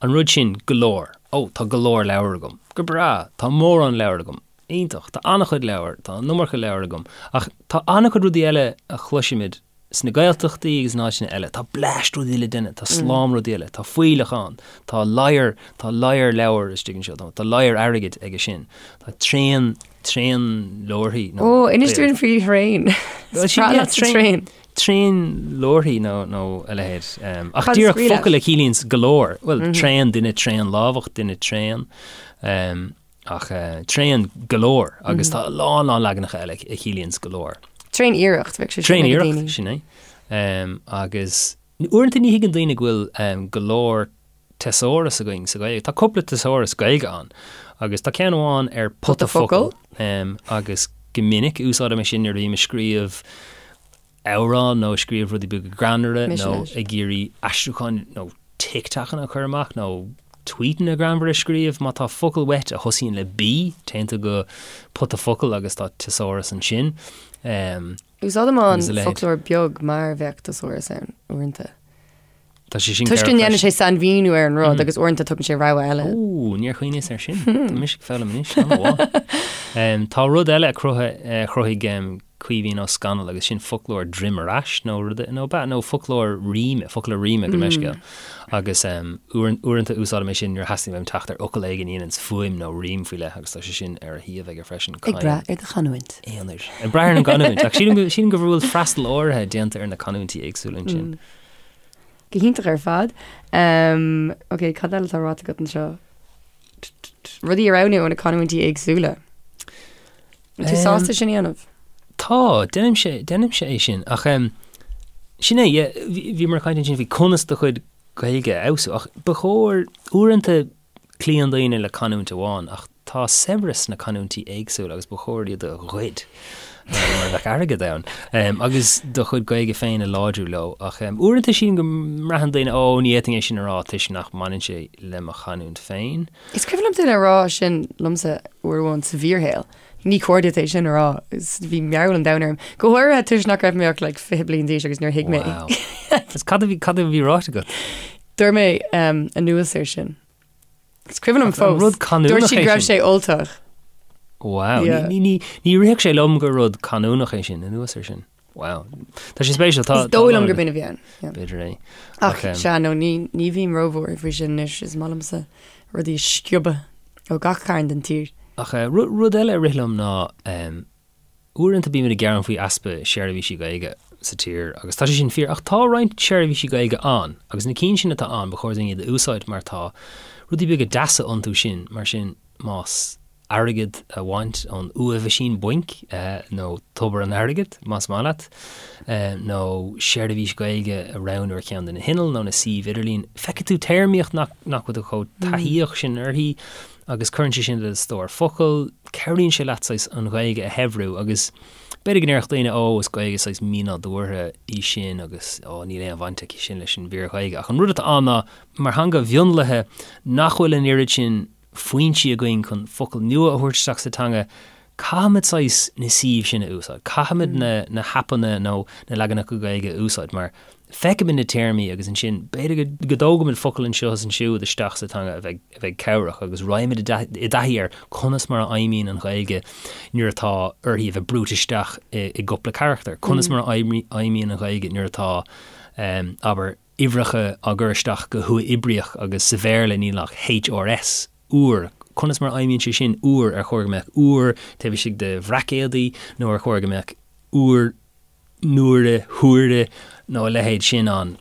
an rud sin go leor, ó tá go leor leabhar agam, go breá, tá mórán leabhar agam, iontach, tá an-chuid leabhar, tá an iomarca leabhar agam ach tá an-chuid rudaí eile a chloisimid sna Gaeltachtaí agus in áiteanna eile, tá bleaist rudaí le déanamh, tá slám rudaí eile, tá fuílleach ann, tá ladhar, tá ladhar leabhar istigh anseo, tá ladhar airgid aige sin, tá tréan Tréan leabharthaí nó. Ó, inis dúinn faoi thraein. Is breá leat sa traein. Tréan leabharthaí nó nó a leithéid. Ach díreach focal a chiallaíonns go leor. Bhuel, tréan, duine tréan lámhach, duine tréan. Ach tréan go leor agus tá a lán lán leaganacha eile a chiallaíonns go leor. Tréan iarracht, bheadh sé sin Tréan iarracht, sin é. Agus uaireanta ní thuigeann daoine go bhfuil go leor teasáras againn sa Ghaeilge. Tá cúpla teasáras Gaeilge ann agus tá ceann amháin ar pota focal agus go minic úsáidim é sin nuair a bhím ag scríobh amhrán nó ag scríobh rudaí beaga greannmhara nó ag iarraidh aistriúcháin nó TikTokanna a chur amach nó tweetanna greannmhara a scríobh. Má tá focal uait a thosaíonn le B, téann tú go pota focal agus tá teasáras ansin. Úsáidim an foclóir beag mar bheadh teasáras ann uaireanta. Tá sé sin Toisc go ndéanann sé sainmhíniú ar an rud agus uaireanta tugann sé rogha eile. Ó, níor chuimhníos air sin. Tá mise ag foghlaim anois, an-mhaith. Tá rud eile a chruthaigh, a chruthaigh. Caoimhín Ó Scanaill agus sin foclóir droim ar ais nó rud nó ba nó foclóir ríme, focla ríme gabh mo leithscéal. Agus uaireanta úsáidim é sin nuair a theastaíonn uaim teacht ar fhocal éigin a dhéananns fuaim nó rím faoi leith agus tá sé sin ar a shuíomh aige freisin. Ag brath ar do chanúint. Aonair. Ag brath ar an gcanúint. Ach sílim go, sílim go bhfuil freastal áirithe déanta ar na canúintí éagsúla ansin. Go hiontach ar fad. Ok, cad eile atá ráite agat anseo? Rudaí a roghnú ó na canúintí éagsúla. An tú sásta sin a dhéanamh? Tá, déanaimse, déanaimse é sin. Ach sin é, yeah, bhíomar ag caint ansin faoi conas do chuid Gaeilge a fheabhsú, ach ba chóir, uaireanta cloíonn daoine le canúint amháin, ach tá saibhreas sna canúintí éagsúla agus ba chóir iad a ghoid, mar a bheadh airgead ann, agus do chuid Gaeilge féin a láidriú leo. Ach uaireanta sílim go mbraitheann daoine, ó, ní fhéadfainn é sin a rá toisc nach mbaineann sé le mo chanúint féin. Is cuimhin liom duine a rá sin liomsa uair amháin sa bhfíorshaol. Ní cóir duit é sin a rá. Bhí mearbhall an domhain orm. Go háirithe toisc nach raibh mé ach like 20 bliain d'aois agus níor thuig mé. Wow. Agus cad a bhí, cad a bhí ráite agat? Dúirt mé um, anuas air sin. Is cuimhin liom Ach an fós. rud canúnach Dúirt siad é go raibh sin? sé Ultach. Wow. Yeah. Ní, ní, ní rithfeadh sé liom gur rud canúnach é sin, anuas air sin. Wow. Tá sé spéisiúil. Tá, Is dóigh liom gurb in a bhí ann. Yeah. B'fhéidir é. Ach sea, nó ní, ní bhím róbhuartha faoi sin anois, is maith liomsa rudaí a sciobadh ó gach cearn den tír. Ach eh, rud, rud eile a rith liom ná um, uaireanta bímid ag gearán faoi easpa seirbhísí Gaeilge sa tír agus tá sé sin fíor ach tá roinnt seirbhísí Gaeilge ann agus na cinn sin atá ann ba chóir dúinn iad a úsáid mar tá rudaí beaga deasa iontu sin mar sin más airgead a bhaint ón uathmheaisín bainc, nó tobar an airgid, más maith leat, nó seirbhís Ghaeilge a roghnú ar cheann de na hinnill nó na suímh idirlín. Feicfidh tú téarmaíocht nach bhfuil tú chomh taithíoch sin uirthi agus cuireann sé sin le do stór focal, cabhraíonn sé leat saghas an Ghaeilge a shaibhriú agus b'fhéidir go ndéarfadh daoine ó is Gaeilge saghas mínádúrtha í sin agus ó níl aon bhaint aici sin leis an bhfíor-Ghaeilge ach an rud atá ann ná mar theanga mhionlaithe nach bhfuil an oiread sin foinsí againn chun focail nua a thabhairt isteach sa teanga, caithfimid saghas na suímh sin a úsáid, caithfimid na na haipeanna nó na leaganacha Gaeilge a úsáid mar feicimid na téarmaí agus ansin b'fhéidir go dtógaimid focal anseo is ansiúd isteach sa teanga a bheidh a bheidh cabhrach agus raghaimid i dtaithí ar conas mar a fheidhmíonn an Ghaeilge nuair atá uirthi a bheith brúite isteach i i gcúpla carachtar, conas mar a fheidhmíonn an Ghaeilge nuair atá, abair, uimhreacha á gcur isteach go huathoibríoch agus sa Bhéarla níl ach HRS, uair. Conas mar a fheidhmíonn sé sin, uair? Ar chóir go mbeadh uair taobh istigh de bhraicéadaí nó ar chóir go mbeadh uair, n-uaire, huaire nó a leithéid sin ann?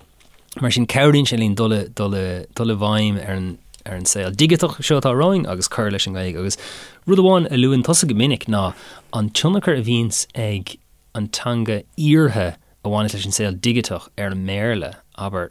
Mar sin cabhraíonn sé linn dul i, dul i, dul i bhfeidhm ar an, ar an saol digiteach seo atá romhainn agus cur leis an nGaeilge. Agus rud amháin a luann tusa go minic ná an tionchar a bhíonns ag an teanga iarrtha a bhaineas leis an saol digiteach ar an mBéarla, abair.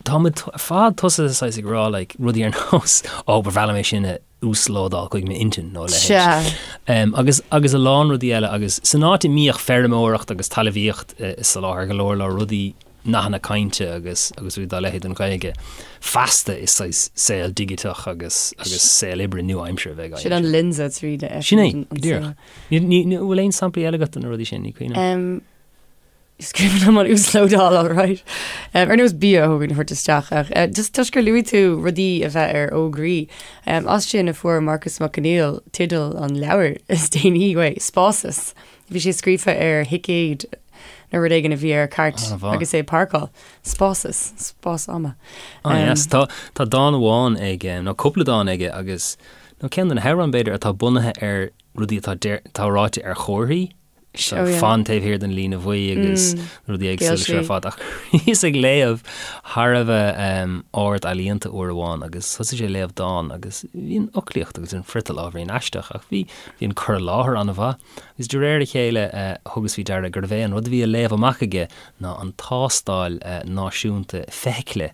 Tá muid ar fad tosaithe saghas ag rá like rudaí ar nós ó ba bhreá liom é sin a uaslódáil chuig m'intinn nó a leithéid. Um, agus, agus a lán rudaí eile agus san áit a mbíodh feirmeoireacht agus talmhaíocht ag soláthar go leor leor rudaí nathanna cainte agus agus rudaí dá leithéid don Ghaeilge feasta is saghas saol digiteach agus agus saol oibre nua-aimseartha a bheidh Sin an lionsa tríd a Sin é, go díreach. Ní, ní, bhfuil aon samplaí eile agat de na rudaí sin, ní cuimhin liom. Um, Is cuimhin liom an uaslódáil alright. Um, ar nós bia a thógaint a thabhairt isteach ach uh, just toisc gur luaigh tú rudaí a bheith ar fhógraí. Um, as sin a fuair Marcus Mac Conghail teideal an leabhair is déanaí uaidh, Spásas. Bhí sé scríofa ar thicéad nó rud éigin a bhí ar cairt agus é ag páirceáil. Spásas, spás ama. Ah, um, yes. Tá, tá dán amháin aige, nó cúpla dán aige agus nó ceann de na hamhráin b'fhéidir atá bunaithe ar rudaí atá, atá ráite ar chomharthaí. Oh, yeah. Fan taobh thiar den líne bhuí agus mm. rudaí éagsúla seo ar fad ach bhíos ag léamh thar a bheith um, ard-ealaíonta uair amháin agus thosaigh sé ag léamh dán agus bhí an fhoclaíocht agus an friotal ábhairín aisteach ach bhí bhí an cur i láthair an-mhaith agus de réir a chéile uh, thugas faoi deara gurbh é an rud a bhí á léamh amach aige ná an tástáil uh, náisiúnta feithicle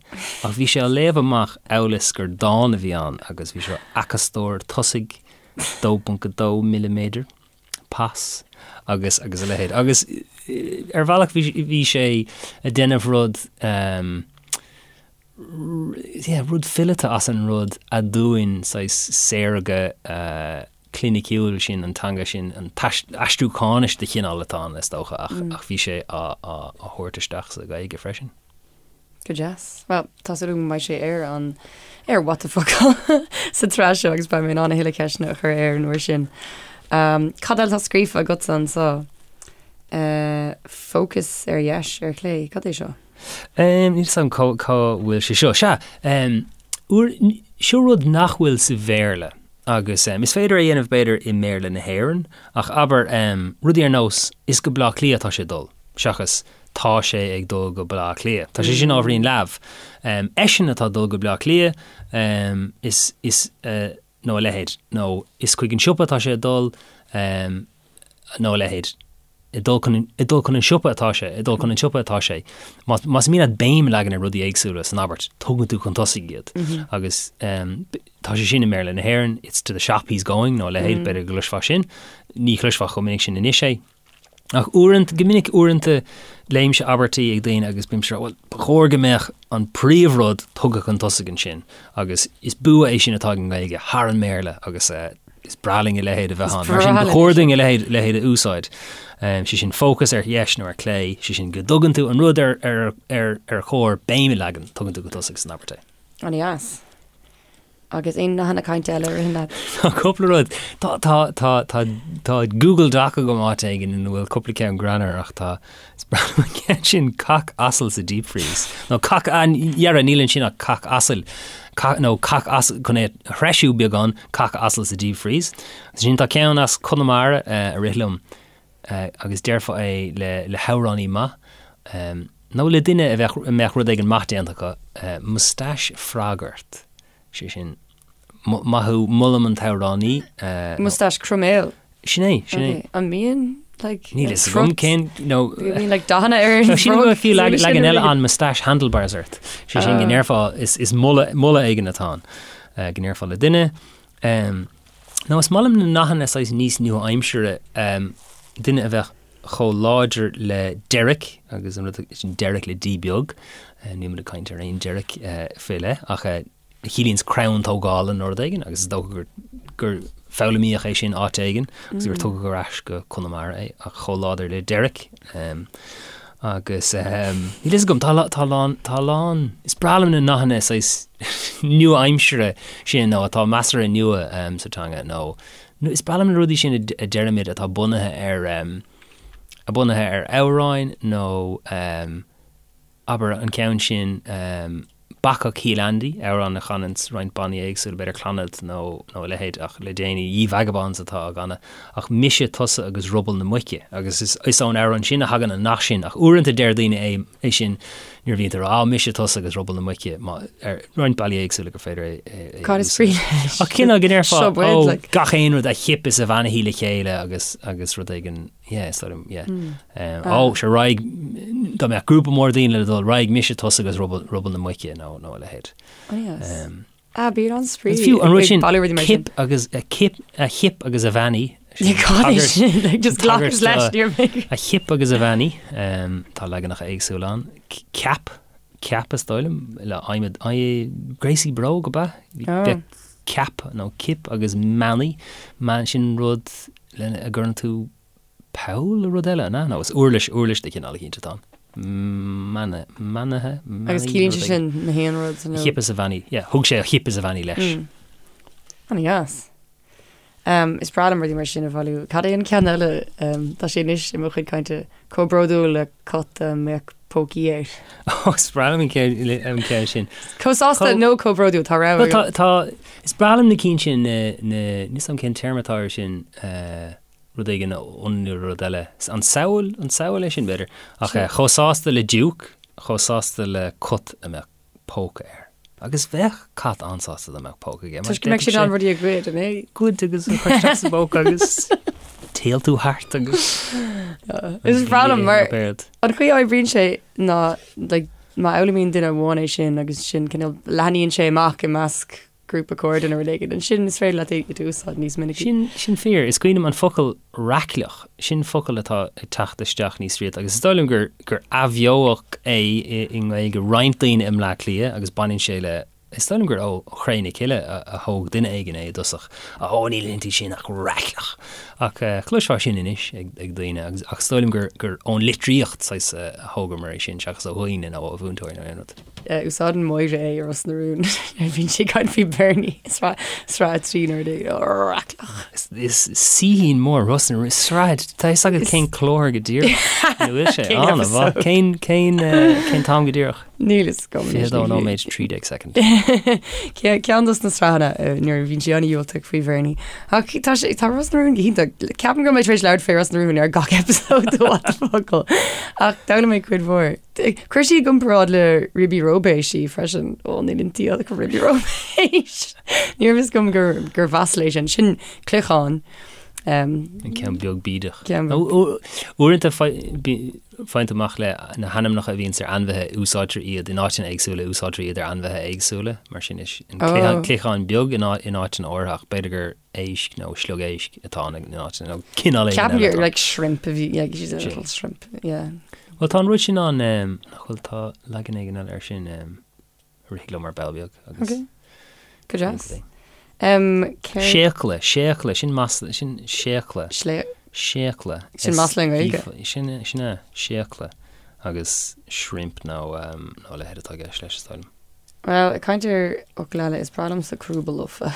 ach bhí sé á léamh amach amhail is gur dán a bhí ann agus bhí sé acastóir tosaigh 2.2 milliméadar. pas agus agus a leithéid. Agus ar bhealach bhí bhí sé ag déanamh rud um, yeah, rud fileata as an rud aduain saghas saorga uh, cliniciúil sin an teanga sin an aistriúcháinis de chineál atá ann is dócha ach, mm. ach bhí sé á, á, á thabhairt isteach sa Ghaeilge freisin. Go deas. Bhuel, tá súil agam go mbeidh sé ar an ar What the Focal sa tsraith seo agus beidh mé in ann a thuilleadh ceisteanna a chur air an uair sin. Um, cad eile atá scríofa agatsa anseo? Fócas ar dheis, ar chlé, cad é seo? Níl 'fhios agam cá cá bhfuil sé seo. Sea, uair, seo rud nach bhfuil sa Bhéarla agus is féidir é a dhéanamh b'fhéidir i mBéarla na hÉireann ach abair rudaí ar nós is go Bleá Cliath atá sé ag dul seachas tá sé ag dul go Bleá Cliath. Tá sé sin ábhairín leamh. Eisean atá ag dul go Bleá Cliath, is, is, nó a leithéid, nó is chuig an siopa atá sé ag dul, nó a leithéid. Ag dul chun, ag dul chun an siopa atá sé, ag dul chun an tsiopa atá sé. Más, más mian leat béim a leagan ar rudaí éagsúla san abairt, tugann tú chun tosaigh iad. Agus tá sé sin i mBéarla na hÉireann, it's to the shop he's going, nó a leithéid, b'fhéidir go gcloisfeá sin. Ní chloisfeá chomh minic sin anois é. Ach uaireanta, go minic uaireanta, léimse abairtí ag daoine agus bímse ag rá, bhuel, ba chóir go mbeadh an príomhrud tugtha chun tosaigh ansin agus is bua é sin atá ag an nGaeilge thar an mBéarla agus is breá linn a leithéid a bheith ann. Mar sin, ba chóir dúinn a leithéid, leithéid a úsáid. Sé sin fócas ar dheis nó ar clé, sé sin go dtugann tú an rud ar, ar, ar, ar chóir béim a leagan, tugann tú chun tosaigh san abairt é. An-deas. Agus aon nathanna cainte eile a ritheann leat? Tá cúpla rud. Tá, tá, tá, tá, tá Google Doc agam áit éigin ina bhfuil cúpla ceann greannmhar ach tá, is breá liom an ceann sin cac asail sa deep freeze. Nó cac, ah, dhera, níl ansin ach cac asail. Cac, nó cac asail, chun é a threisiú beagán, cac asail sa deep freeze. Sin tá ceann as Conamara eh, a rith liom eh, agus déarfá é le, le hamhránaí maith. Um, Nó le duine a bheadh, a mbeadh rud éigin maith déanta acu, moustache frog ort, sé sin, maith thú, molaim an t-amhránaí. Moustache croiméal. Sin é, sin é. An mbíonn, like, Níl fhios agam cén, nó. Bíonn, like, dathanna ar an Sílim go bhfuil fiú leagan eile ann moustache handlebars ort. Sé sin go ndéarfá, is moladh, moladh éigin atá ann, go ndéarfá le duine. Nó is maith liom na nathanna saghas níos nua-aimsire, duine a bheadh chomh láidir le Derek, agus an rud sin Derek le D beag, níl muid ag caint ar aon Derek faoi leith, ach a chiallaíonns crann tógála nó rud éigin, agus is dócha gur, gur foghlaimíodh é sin áit éigin agus gur tugadh ar ais go Conamara é, ach chomh láidir le Derek. Agus níl fhios agam, tá, tá lán, tá lán, is breá liom na nathanna saghas nua-aimsire sin nó atá measartha nua sa teanga nó Nó is breá liom na rudaí sin a deirimid atá bunaithe ar, a bunaithe ar amhráin nó abair an ceann sin Bacach Shíol Andy, amhrán a chananns roinnt bannaí éagsúla, b'fhéidir Clannad nó nó a leithéid ach le déanaí Ye Vagabonds atá á gcanadh ach Mise, Tusa agus Ruball na Muice agus is is ón amhrán sin a thagann an nath sin ach uaireanta deir daoine é é sin nuair a bhíonn tú ag rá, mise, tusa agus ruball na muice, má, ar roinnt bealaí éagsúla gur féidir é, é, é Cad is brí leis? Ach cineál go ndéarfá, Seo buid, ó, like. gach aon rud a chip is a bheannaithí le chéile agus, agus rud éigin, yeah, is dóigh liom, yeah. Um, Ah. Ó, sé raghaidh, dá mbeadh grúpa mór daoine le dul, raghaidh mise, tusa agus ruball, ruball na muice nó, nó a leithéid. Oh, yes. Um, Ah, bíonn an-spraoi Is fiú an rud sin, bailiú rudaí mar sin. cip agus a chip, a chip agus a bheannaí. Sin Cad é sin? Like, just glacas leis, níor mé. A chip agus a bheannaí, um, tá leaganacha éagsúla ann. Ceap, ceap is dóigh liom, le adhmad, gréasaí bróg ab ea? Oh. Bheadh ceap nó cip agus meanaí, man, sin rud lena a gcuireann tú Poll nó rud eile, an ea? Nó is uirlis, uirlis de chineál eicínt atá ann. Mana, manaithe, manaí, Agus ciallaíonn sé sin na haon rud nó? A chip is a bheannaí, yeah, thug sé a chip is a bheannaí leis. Mm. An-dheas. Um, is breá liom rudaí mar sin a bhailiú. Cad é an ceann eile? Um, tá sé anois i mo chuid cainte chomh bródúil le cat a mbeadh pócaí air. Ó, is breá liom an ceann, an ceann sin. Chomh sásta nó chomh bródúil, tá rogha agam. Tá, tá, is breá liom na cinn sin, na, na, níl 'fhios a'm cén téarma atá air sin, eh, rud éigin a ionannú le rud eile. An samhail, an samhail é sin, b'fhéidir. Ach chomh sásta le diúc, chomh sásta le cat a mbeadh póca air. Agus bheadh cat an-sásta dá mbeadh póca aige. Toisc go mbeadh sé in ann rudaí a ghoid, an é? Goid agus a chur isteach sa bpóca agus téaltú thart agus. Is breá liom mar an chaoi a oibríonn sé ná like, má fhoghlaimíonn duine amháin é sin agus sin cineál leathnaíonn sé amach i measc grúpa cairde nó rud éigin, ansin is féidir leat é a úsáid níos minicí. Sin, sin fíor. Is cuimhin liom an focal raicleach, sin focal atá ag teacht isteach níos rialta agus is dóigh liom gur, gur athbheodh é i, i nGaeilge roinnt daoine i mBleá Cliath agus baineann sé le Is dóigh liom gur ó Chré na Cille a thóg duine éigin é i dtosach. Ó, níl inti sin ach raicleach! Ach chloisfeá sin anois ag daoine agus ach is dóigh liom gur gur ón litríocht saghas a thógamar é sin seachas ó dhaoine nó ó mhúinteoirí nó aon rud. Úsáideann Máire é i Ros na Rún nuair a bhíonn sí ag caint faoi Bernie i sraith sraith 3 nuair a deir raicleach. Is saoithín mór Ros na Rún, sraith, tá fhios agat cén clár go díreach ina bhfuil sé Cén an-mhaith. episode? Cén cén cén t-am go díreach? Níl fhios agam anois, 22 ní nóiméad 13 soicind. Ceann dos na sraitheanna nuair a bhíonn sí an-dhiúltach faoi Bhernie. Ach tá sé tá Ros na Rún go hiontach. Ceapaim go raibh mé tar éis labhairt faoi Ros na Rún ar gach episode de What the Focal. Ach d'fhoghlaim mé cuid mhór. Chuir sí i gcomparáid le Ribí Róibéis í freisin. Ó níl inti ach Ribí Róibéis. Ní raibh fhios agam gur gur mhasla é sin. Sin cloicheán. An ceann beag bídeach. Uaireanta Faigheann tú amach le na hainmneacha a bhíonns ar ainmhithe, úsáidtear iad in áiteanna éagsúla, úsáidtear iad ar ainmhithe éagsúla, mar sin is an cloicheán beag in áiteanna áirithe ach b'fhéidir gur éisc nó sliog éisc atá ann in áiteanna nó cineál éigin Ceapaim gur like shrimp a bhí, like she's a little shrimp, yeah. Bhuel tá an rud sin ann, nach bhfuil, tá leagan éigin eile air sin. Rith liom ar ball beag agus. Ok. Go deas. Um, céard... Séacla, séacla, sin masla, sin séacla. Slé... Séacla. Sin masla i nGaeilge. Sin, sin é, séacla. Agus shrimp nó, um, nó a leithéid atá i gceist leis, is dóigh liom. Well, ag caint ar fhocail eile, is breá liomsa crúba lofa.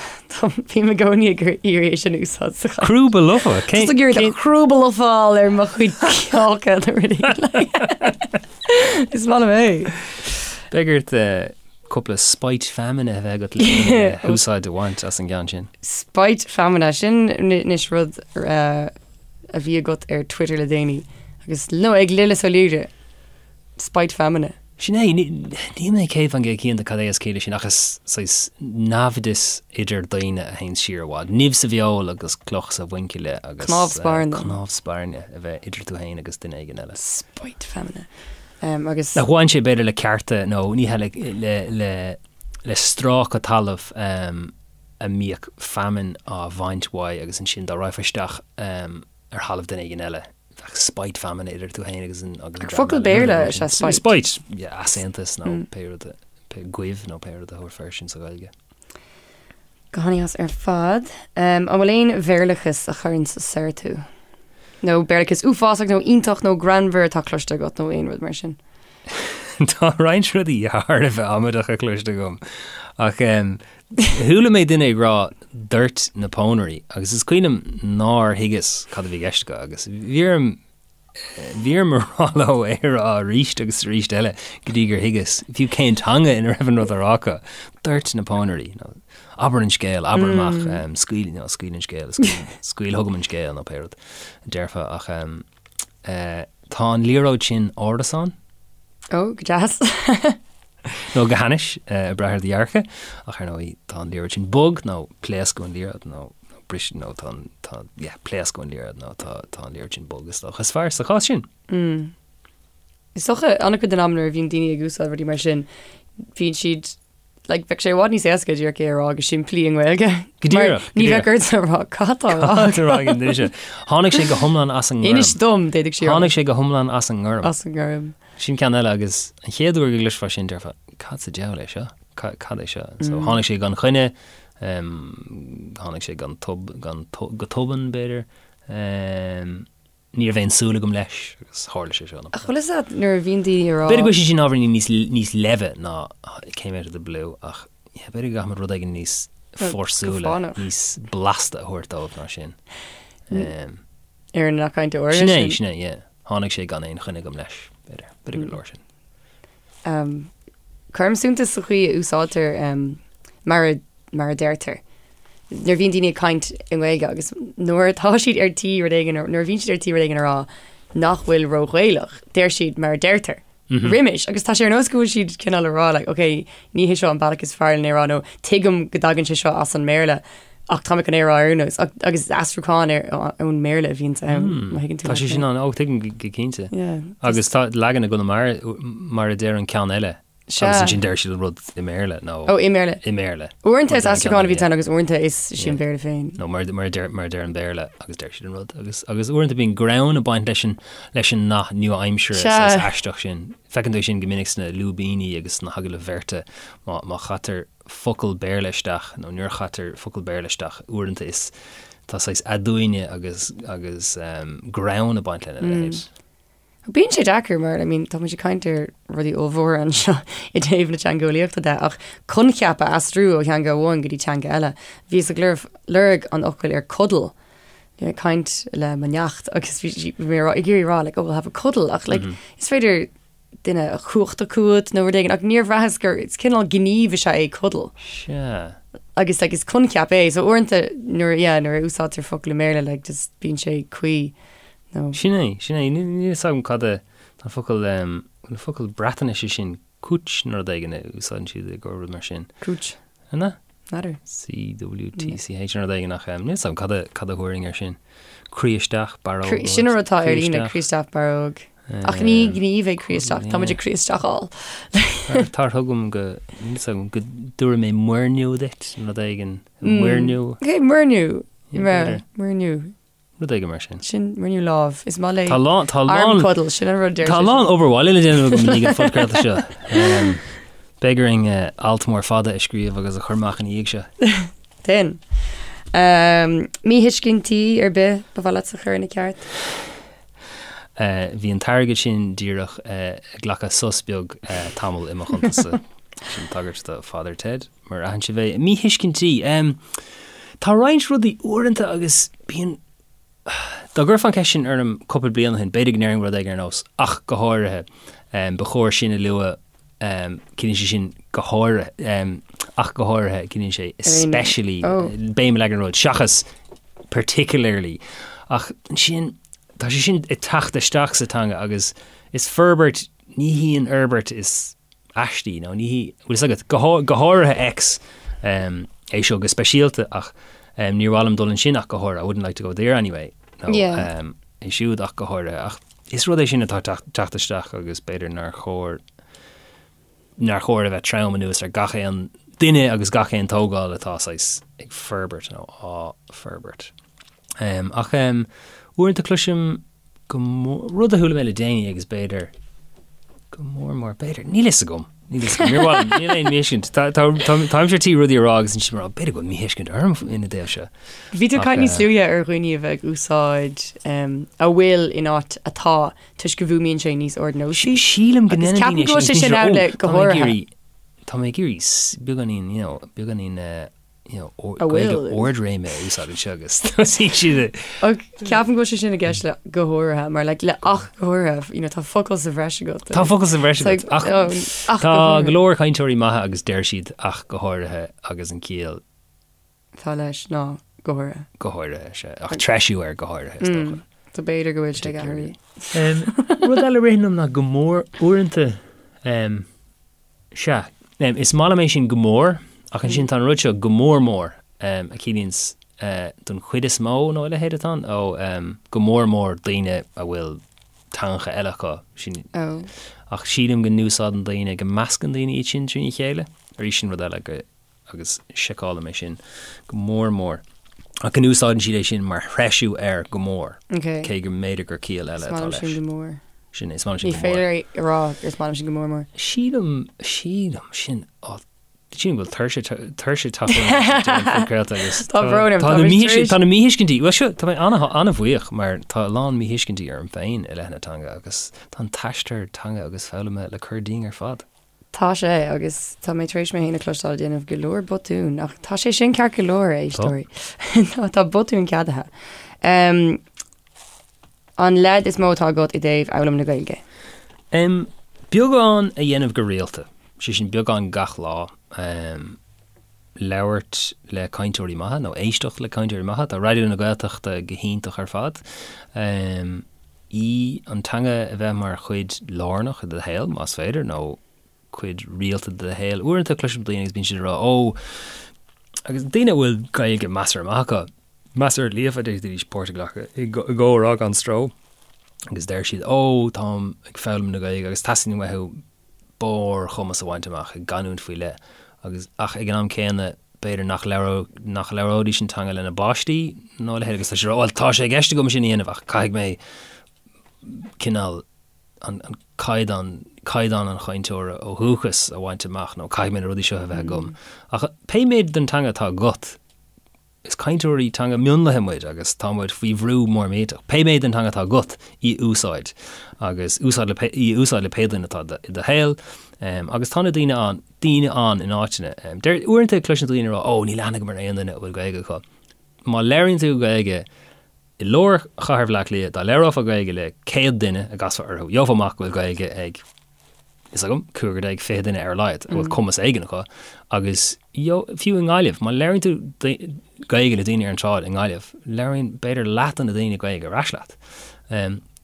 Bím i gcónaí ag iarraidh é sin a úsáid sa chaint. Crúba lofa? Cén... Just ag iarraidh crúba lofa a fháil ar mo chuid cáca nó rudaí. Is maith liom é. Beidh ort cúpla spite feamainne a bheith agat le húsáid a bhaint as an gceann sin. Spite feamainne, sin anois rud a bhí agat ar Twitter le déanaí agus nó ag Lillis Ó Laoire. Spite feamainne. Sin é, níl mé 100% cinnte cad é is ciall leis sin ach is saghas naimhdeas idir daoine a théann siar i bhfad. Nimh sa bhfeoil agus cloch sa mhuinchille agus Cnámh spairne. cnámh spairne a bheith idir tú féin agus duine éigin eile. Spite feamainne. Um, agus. Nach bhain sé b'fhéidir le cearta nó ní hea le, le, le, le stráca talaimh um, a mbíodh feamainn á bhaint uaidh agus ansin dá raghfá isteach um, ar thalamh duine éigin eile. Bheadh spite feamainne idir tú féin agus an agus an dream Focal eile. Béarla is ea spite. Spite, yeah, easaontas nó pé rud a, pé goimh nó pé rud a thabharfá air sin sa Ghaeilge. Go han-deas ar fad. An bhfuil aon Bhéarlachas a chuireann soir tú? Nó Béarlachas uafásach nó iontach nó greannmhar atá cloiste agat nó aon rud mar sin? Tá roinnt rudaí thar a bheith amaideacha cloiste agam ach chuala mé duine ag rá doirt na pónairí agus is cuimhin liom nár thuigeas cad a bhí i gceist acu agus bhí orm bhí orm a rá leo é a rá arís agus arís eile go dtí gur thuigeas fiú cén teanga ina raibh an rud á rá acu. Doirt na pónairí nó abair an scéal, abair amach, scaoil, nó scaoil an scéal, scaoil chugam an scéal nó pé rud a déarfá ach Tá an liathróid sin árasán. Ó, go deas. Nó go hainnis, ag brath ar do dhearcadh. Ach ar ndóigh, tá an liathróid sin bog, nó pléascadh an liathróid, nó briseadh, nó tá an, tá, yeah, pléascadh an liathróid, nó tá, tá an liathróid sin bog, is dócha. Is fearr sa chás sin. Is dócha, an-chuid den am nuair a bhíonn daoine ag úsáid rudaí mar sin, bíonn siad Like, bheadh sé i bhfad níos éasca díreach é a rá go simplí i nGaeilge. Go díreach, Mar ní bheadh ort a rá cad tá á rá. Cad tá á rá ag an duine sin? Tháinig sé go hiomlán as an ngorm. Inis dom, d'fhéadfadh sí a rá. Tháinig sé go hiomlán as an ngorm. As an ngorm. Sin ceann eile agus an chéad uair go gcloisfeá sin déarfá, cad sa diabhal é seo? Cad é seo? So tháinig sé gan choinne, tháinig sé gan tob, gan, go tobann b'fhéidir. Ní raibh aon súil agam leis agus tharla sé seo. Ach bhfuil fhios agat nuair a bhíonn daoine ag rá. B'fhéidir go bhfuil sé sin ábhairín níos, níos leimhe ná came out of the blue ach yeah, b'fhéidir go gcaithfimid rud éigin níos fórsúla, níos blasta a thabhairt dóibh ná sin. Um, Ar an cainteoir sin é, sin é, yeah. Tháinig sé gan aon choinne agam leis, b'fhéidir, b'fhéidir gur leor sin. Um, cuirim suntas sa chaoi a úsáidtear um, mar a mar a deirtear. Nuair a bhíonn daoine ag caint i nGaeilge agus nuair atá siad ar tí rud éigin, nuair a bhíonn siad ar tí rud éigin a rá nach bhfuil ró-Ghaelach, deir siad mar a deirtear. Roimis, agus tá sé ar nós go bhfuil siad cineál a rá like, ok, ní hé seo an bealach is fearr lena rá nó tuigim go dtagann sé seo as an mBéarla ach tá mé chun é a rá ar aon nós. Agus aistriúchán ar ón mBéarla a bhíonns ann, má thuigeann tú Tá sé sin ann, ó tuigim go cinnte. Yeah. Agus tá leagan i gConamara mar a deir an ceann eile. Sea. Agus ansin deir siad an rud i mBéarla nó. Ó, i mBéarla. I mBéarla. Uaireanta is aistriúchán a bhíonn ann agus uaireanta is sé an Béarla féin. Nó mar mar deir mar deir an Béarla agus deir siad an rud agus agus uaireanta bíonn greann ag baint leis an leis an nath nua-aimseartha Sea. saghas aisteach sin. Feiceann tú é sin go minic sna lúibíní agus sna hagallaimh bheirte má má chaitear focal Béarla isteach nó nuair a chaitear focal Béarla isteach uaireanta is tá saghas aduaine agus agus greann ag baint lena leithéid. Bíonn sé deacair mar, I mean, tá muid ag caint ar rudaí ollmhóra anseo i dtaobh na teangeolaíochta de, ach coincheap a aistriú ó theanga amháin go dtí teanga eile. Bhíos ag lorg an fhocail ar cuddle, ag caint le mo neacht agus bhí sí, bhí mé ag iarraidh rá like, oh, we'll have a cuddle, ach like, is féidir duine a chumhachtú chugat nó rud éigin, ach níor bhraitheas gur, is cineál gníomh is ea é cuddle. Sea. Agus like, is coincheap é, so uaireanta nuair, yeah, nuair a úsáidtear focal i mBéarla, like, just bíonn sé cuí. Nó. Sin é, sin é. Níl a fhios agam cad é an focal, an focal Breatnaise sin, cwtch nó rud éigin a úsáideann siad i gcomhair rud mar sin. Cwtch. An ea? N'fheadar. C-W-T-C-H nó rud éigin ach níl a fhios agam cad a, cad a thabharfainn air sin. Croí isteach, barróg. Croí, sin an rud atá ar líne, croí isteach, barróg. Ach ní gníomh é croí isteach, tá muid ag croí isteacháil. Tar chugam go, níl a fhios agam, go dtabharfaidh mé muirniú duit, nó rud éigin. Muirniú. Ok, muirniú. Muirniú. Rud éigin mar sin. Sin muirniú lámh. Is maith léi Tá lán, tá lán, arm cuddle, sin an rud deir tá sé lán sin. obair bhaile le déanamh agam i ndiaidh an phodchraolta seo. Em, Beidh orainn eh, alt mór fada a scríobh agus a chur amach ina dhiaidh seo. Déan. Em, míthuiscintí ar bith ba mhaith leat a chur ina ceart? Eh, Bhí an t-airgead sin díreach eh, ag glacadh sos beag eh, tamall i mo chuntas-sa. Sin tagairt do Father Ted. Mar aithin sibh é. Míthuiscintí. Tá roinnt rudaí uaireanta agus bíonn, dá gcuirfeá an cheist sin orm cúpla bliain ó shin, b'fhéidir go ndéarfainn rud éigin ar nós 'ach go háirithe'. Ba chóir sin a lua, ciallaíonn sé sin go háirithe, ach go háirithe, ciallaíonn sé especially, béim a leagan ar an rud, seachas particularly. Ach ansin, tá sé sin ag teacht isteach sa teanga agus is forbairt, ní hí an fhorbairt is aistí nó ní hí, bhfuil fhios agat, go, go háirithe X, é seo go speisialta ach níor mhaith liom dul ansin ach go háirithe, I wouldn't like to go there anyway, nó Yeah. é siúd ach go háirithe ach is rud é sin atá ag teacht isteach agus b'fhéidir nár chóir, nár chóir a bheith trom anuas ar gach aon duine agus gach aon tógáil atá saghas ag forbairt nó á forbairt. Ach uaireanta cloisim go mór, rud a chuala mé le déanaí agus b'fhéidir, go mór mór, b'fhéidir, níl fhios agam, níl fhios agam, níor mhaith liom, níl aon míthuiscint, tá, tá, tá, táimse ar tí rudaí a rá agus ansin mar, b'fhéidir go bhfuil míthuiscint orm ina dtaobh seo. Bhí tú ag Ach, caint níos eh, luaithe ar dhaoine a bheith ag úsáid em, a bhfuil in áit atá toisc go bhfuaimníonn sé níos ardnósaí. Sílim go Agus ndéanann ceapaim daoine go bhfuil sin, sé sin is ann cinnte, le "Ó, go tá mé ag háirithe." iarraidh, tá mé ag iarraidh s- beagáinín, you know, beagáinín, eh, you know, A Gaeilge bhfuil. ardréime a úsáid anseo agus tosaíonn siad ag. Ach ceapaim go bhfuil sé sin i gceist le go háirithe, mar like, le ach go háirithe, you know, tá focal sa bhreis agat. Tá focal sa bhreis It's like, agat, ach oh, ach go tá háirithe. go leor cainteoirí maithe agus deir siad ach go háirithe agus an ciall Tá leis ná go háirithe. go háirithe, sea, ach treisiú ar go háirithe is dócha. So b'fhéidir go bhfuil sé ag athrú. Rud eile a ritheann liom ná go mór uaireanta, Sea. Is maith liom é sin go mór, ach ansin tá an rud seo go mór mór, a chiallaíonns don chuid is mó nó a leithéid atá ann, ó go mór mór daoine a bhfuil teangacha eile acu, sin, ach sílim go n-úsáideann daoine, go meascann daoine iad sin trína chéile. Arís sin rud eile go, agus seiceálaim é sin go mór mór. Ach go n-úsáideann siad é sin mar threisiú ar go mór, cé go mb'fhéidir gur ciall eile atá leis. Is maith liom sin go mór. Sin é, is maith liom sin Ní go mór. féidir a rá gur is maith liom sin go mór mór. Sílim, sílim, sin, á, sílim go bhfuil tuirse, tuirse ag teacht orm ag deireadh an phodchraolta agus Tá brón orm, tá tá na mé míthuisc- tar éis- tá na míthuiscintí, bhuel seo, tá mé an-bhuíoch mar tá a lán míthuiscintí orm féin i leith na teanga agus tá an t-aistear teanga agus foghlama le cur dínn ar fad. Tá sé, agus tá mé tar éis mé féin a chloisteáil ag déanamh go leor botún, ach tá sé sin ceart go leor, a éisteoirí. Tá botúin ceadaithe. Um, an leid is mó atá agat i dtaobh fhoghlaim na Gaeilge? Um, beagán a dhéanamh go rialta, sé sin beagán gach lá. Um, labhairt le cainteoirí maithe nó éisteacht le cainteoirí maithe. Tá Raidió na Gaeltachta go hiontach ar fad. Um, í an teanga a bheith mar chuid lárnach de do shaol, más féidir, nó cuid rialta de do shaol. Uaireanta cloisim daoine agus bíonn siad ag rá, ó, agus daoine a bhfuil Gaeilge measartha maith acu, measartha líofa, d'fhéadfaidís páirt a ghlacadh i gcomhrá gan stró, agus deir siad, ó, táim ag foghlaim na Gaeilge agus teastaíonn uathu. barrchumas a bhaint amach i gcanúint faoi leith agus ach ag an am céanna b'fhéidir nach labhródh nach labhróidís an teanga lena bpáistí nó a leithéid agus tá sé bhuel tá sé i gceist agam sin a dhéanamh ach caithfidh mé cineál an an caighdeán caighdeán an chainteora ó dhúchas a bhaint amach nó caithfidh mé na rudaí seo a bheith agam ach pé méid den teanga atá agat Is cainteoirí teanga mionlaithe muid agus tá muid faoi bhrú mór millteach. Pé méid den teanga atá agat, í a úsáid agus úsáid le í a úsáid le pé duine atá i do shaol. Agus tá na daoine ann, daoine ann in áiteanna. Deir, uaireanta cloiseann daoine ag rá, 'Ó, níl aithne agam ar aon duine a bhfuil Gaeilge acu. Má labhraíonn tú Gaeilge i lár chathair Bhaile Átha Cliath, dá labhrófá Gaeilge le 100 duine a gcasfá orthu, gheofá amach go bhfuil Gaeilge ag fhios agam, cúigear déag, 20 duine ar a laghad a bhfuil cumas éigin acu agus fiú i nGaillimh, má labhraíonn tú Gaeilge le daoine ar an tsráid i nGaillimh, labhraíonn b'fhéidir leath de na daoine Gaeilge ar ais leat.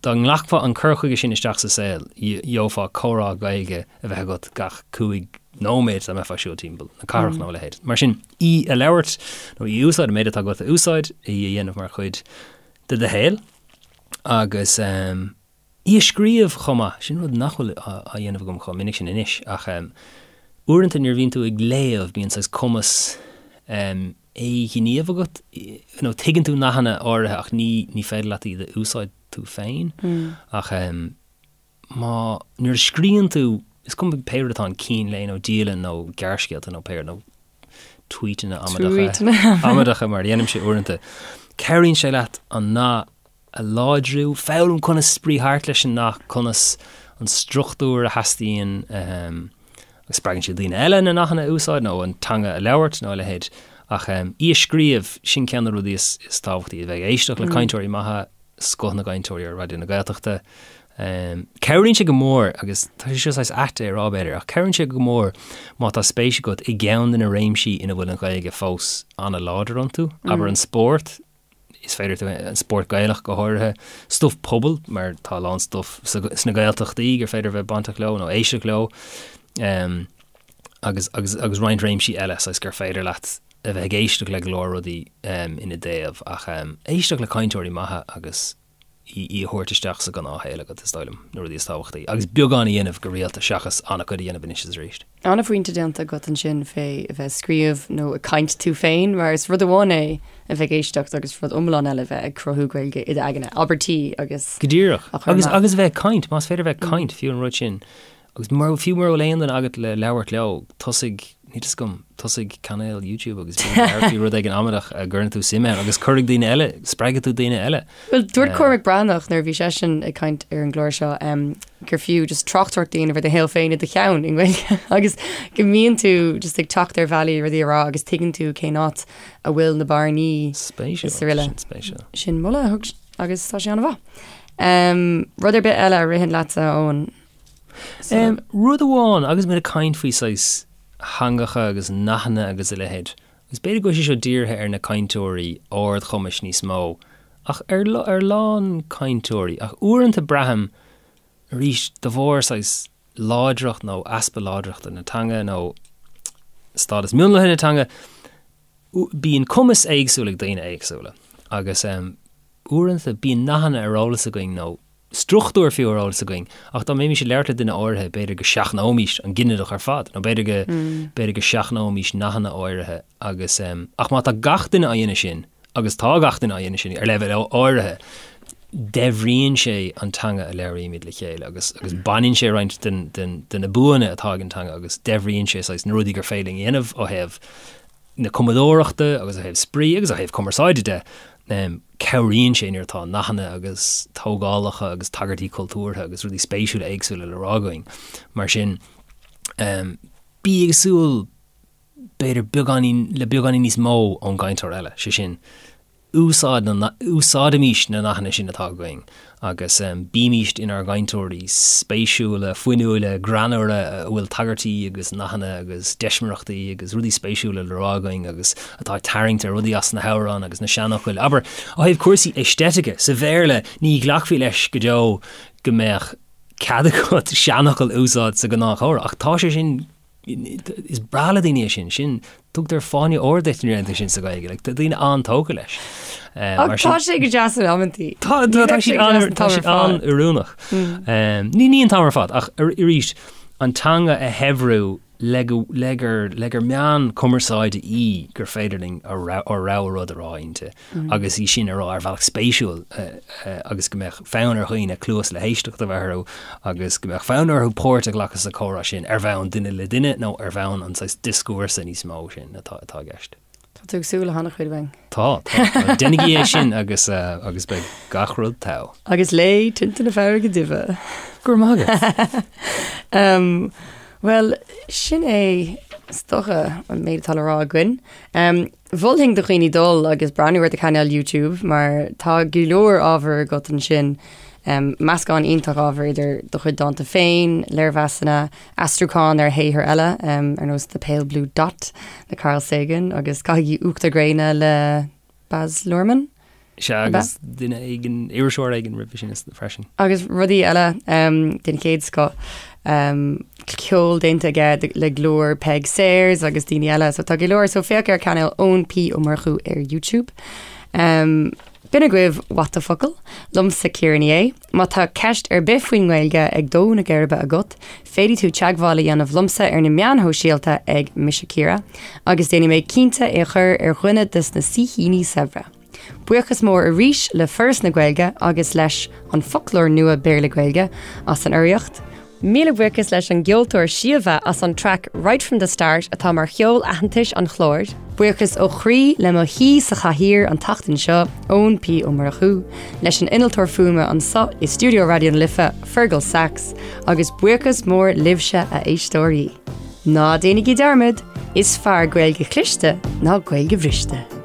Dá nglacfá an cur chuige sin isteach sa saol, gheofá comhrá Gaeilge a bheith agat gach cúig nóiméad dá mbeifeá ag siúl timpeall na cathrach nó a leithéid. Mar sin, í a labhairt nó í a úsáid, an méid atá agat a úsáid, í a dhéanamh mar chuid de do shaol agus. Í a scríobh chomh maith, sin rud nach bhfuil á dhéanamh agam chomh minic sin anois, ach uaireanta nuair a bhíonn tú ag léamh bíonn saghas cumas éighníomh agat, nó tuigeann tú nathanna áirithe ach ní ní féidir leat iad a úsáid tú féin. Ach má, nuair a scríonn tú, is cuma pé rud atá ann, cín lae nó dialann nó gearrscéalta nó pé rud, nó tweetanna amaideacha, amaideacha mar a dhéanaimse uaireanta, cabhraíonn sé leat an nath a láidriú, foghlaim conas spraoi thart leis an nath, conas an struchtúr a theastaíonn agus spreagann sé daoine eile na nathanna a úsáid nó an teanga a labhairt nó a leithéid. Ach í a scríobh, sin ceann de na rudaí is tábhachtaí, a bheith ag éisteacht le cainteoirí maithe, scoth na gcainteoirí ar Raidió na Gaeltachta. Cabhraíonn sé go mór, agus tá sé seo saghas ait é a rá b'fhéidir, ach cabhraíonn sé go mór má tá spéis agat i gceann de na réimsí ina bhfuil an Ghaeilge fós an-láidir iontu, abair an spórt, is féidir tú an spórt Gaelach go háirithe, stuif pobail mar tá a lán stuif sna Gaeltachtaí gur féidir bheith bainteach leo nó éisteacht leo um, agus, agus, agus roinnt réimsí eile saghas gur féidir leat a bheith ag éisteacht le go leor rudaí um, ina dtaobh ach um, éisteacht le cainteoirí maithe agus í a thabhairt isteach sa ghnáthshaol agat, is dóigh liom, na rudaí is tábhachtaí. Agus beagán a dhéanamh go rialta seachas an-chuid a dhéanamh anois is arís. An-phointe déanta agat ansin fé a bheith ag scríobh nó ag caint tú féin, mar is rud amháin é a bheith ag éisteacht agus rud iomlán eile a bheith ag cruthú Gaeilge i d'aigne, abairtí agus. Go díreach. Agus agus a bheith ag caint, más féidir a bheith ag caint, fiú an rud sin. Agus mura, fiú mura bhfuil aon duine agat le labhairt leo, tosaigh, níl fhios agam, tosaigh cainéal YouTube agus bí ag labhairt faoi rud éigin amaideach a gcuireann tú suim ann agus cuirfidh daoine eile, spreagfaidh tú daoine eile. Bhuel, dúirt Cormac Breathnach nuair a bhí seisean ag caint ar an gclár seo um, gur fiú just tráchtaireacht a dhéanamh ar do shaol féin i do cheann i nGaeilge agus go mbíonn tú just ag teacht ar bhealaí rudaí a rá agus tuigeann tú cén áit a bhfuil na bearnaí Spéisiúil, sin spéisiúil. Sin moladh a thug agus tá sé an-mhaith. Um, rud ar bith eile a ritheann leatsa, Eoin? Rud amháin, agus muid ag caint faoi saghas theangacha agus nathanna agus a leithéid, agus b'fhéidir go bhfuil sé seo dírithe ar na cainteoirí ardchumais níos mó, ach ar ar a lán cainteoirí, ach uaireanta braithim, arís, de bharr saghas láidreacht nó easpa láidreachta na teanga nó stádas mionlaithe na teanga, bíonn cumas éagsúil ag daoine éagsúla agus uaireanta bíonn nathanna ar eolas againn nó struchtúr fiú ar eolas againn, ach dá mbeimis ag labhairt le duine áirithe, b'fhéidir go seachnóimis an ginideach ar fad, nó b'fhéidir go, b'fhéidir go seachnóimis nathanna áirithe agus, ach má tá gach duine á dhéanamh sin, agus tá gach duine á dhéanamh sin ar leibhéal áirithe, daibhríonn sé an teanga a labhraímid le chéile agus, agus baineann sé roinnt den, den, de na buanna atá ag an teanga agus daibhríonn sé saghas na rudaí gur féidir linn a dhéanamh ó thaobh na cumadóireachta agus ó thaobh spraoi agus ó thaobh cumarsáide de. Cabhraíonn sé nuair atá nathanna agus tógálacha agus tagairtí cultúrtha agus rudaí spéisiúla éagsúla le rá againn. Mar sin, bí ag súil b'fhéidir beagáinín, le beagáinín níos mó ón gcainteoir eile, sé sin, úsáid na, úsáidimís na nathanna sin atá againn agus bímíst inár gcainteoirí spéisiúla, fuinniúla, greannmhara a bhfuil tagairtí agus nathanna agus deismireachtaí agus rudaí spéisiúla le rá againn agus atá ag tarraingt ar rudaí as na hamhráin agus na seanfhocail. Abair, ó thaobh cúrsaí aeistéitice, sa Bhéarla ní ghlacfaí leis go deo go mbeadh cead agat seanfhocal a úsáid sa ghnáthchomhrá ach tá sé sin Is breá le daoine é sin. Sin, tugtar fáinne óir duit nuair a dhéanann tú sin sa Ghaeilge. Like, tá daoine an-tógtha leis. Ach mar tá sé go deas in amantaí. Tá tá tá sé an tá sé an-oiriúnach. Ní ní an t-am ar fad ach arís. an teanga a shaibhriú le go, le gur, le gur meán cumarsáide í gur féidir linn ár rogha rud a rá inti agus í sin a rá ar bhealach spéisiúil agus go mbeadh fonn ar dhaoine cluas le héisteacht a bheith orthu agus go mbeadh fonn orthu páirt a ghlacadh sa chomhrá sin ar bhonn duine le duine nó ar bhonn an saghas dioscúrsa níos mó sin atá, atá i gceist. Tá tú ag súil le han-chuid uainn. Tá, tá. Déanaigí é sin agus agus beidh gach rud togha. Agus léigh Tinte na Farraige Duibhe. Go raibh maith agat. Um, Bhuel, sin é is dócha an méid atá le rá againn. Um, Mholfainn do dhaoine dul agus breathnú ar do chainéal YouTube mar tá go leor ábhar agat ansin. Um, meascán iontach ábhar idir do chuid dánta féin, léirmheasanna, aistriúchán ar shaothair eile, ar nós The Pale Blue Dot le Carl Sagan agus Caithigí Uachtar Gréine le Baz Luhrmann. Sea, agus duine éigin, iriseoir éigin roimhe sin freisin. Agus rudaí eile den chéad scoth. Ceol déanta aige le glór Peig Sayers agus daoine eile, so tá go leor. So féach ar chainéal Eoin P Ó Murchú ar YouTube. B'in agaibh What the Focal, liomsa Ciara Ní É. Má tá ceist ar bith faoin nGaeilge ag dó na geirbe agat, féadfaidh tú teagmháil a dhéanamh liomsa ar na meáin shóisialta ag Mise Ciara, agus déanfaidh mé cinnte é a chur ar dhuine de na saoithíní saibhre. Buíochas mór arís le Foras na Gaeilge agus leis An Foclóir Nua Béarla-Gaeilge as an urraíocht. Míle buíochas leis an gceoltóir Síomha as an traic Right From The Start atá mar cheol aitheantais an chláir. Buíochas ó chroí le mo shaoi sa chathaoir an tseachtain seo, Eoin P Ó Murchú, leis an innealtóir fuaime anseo i stiúideo Raidió na Life, Fergal Sachs, agus buíochas mór libhse a éisteoirí. Ná déanaigí dearmad, is fearr Gaeilge chliste ná Gaeilge bhriste.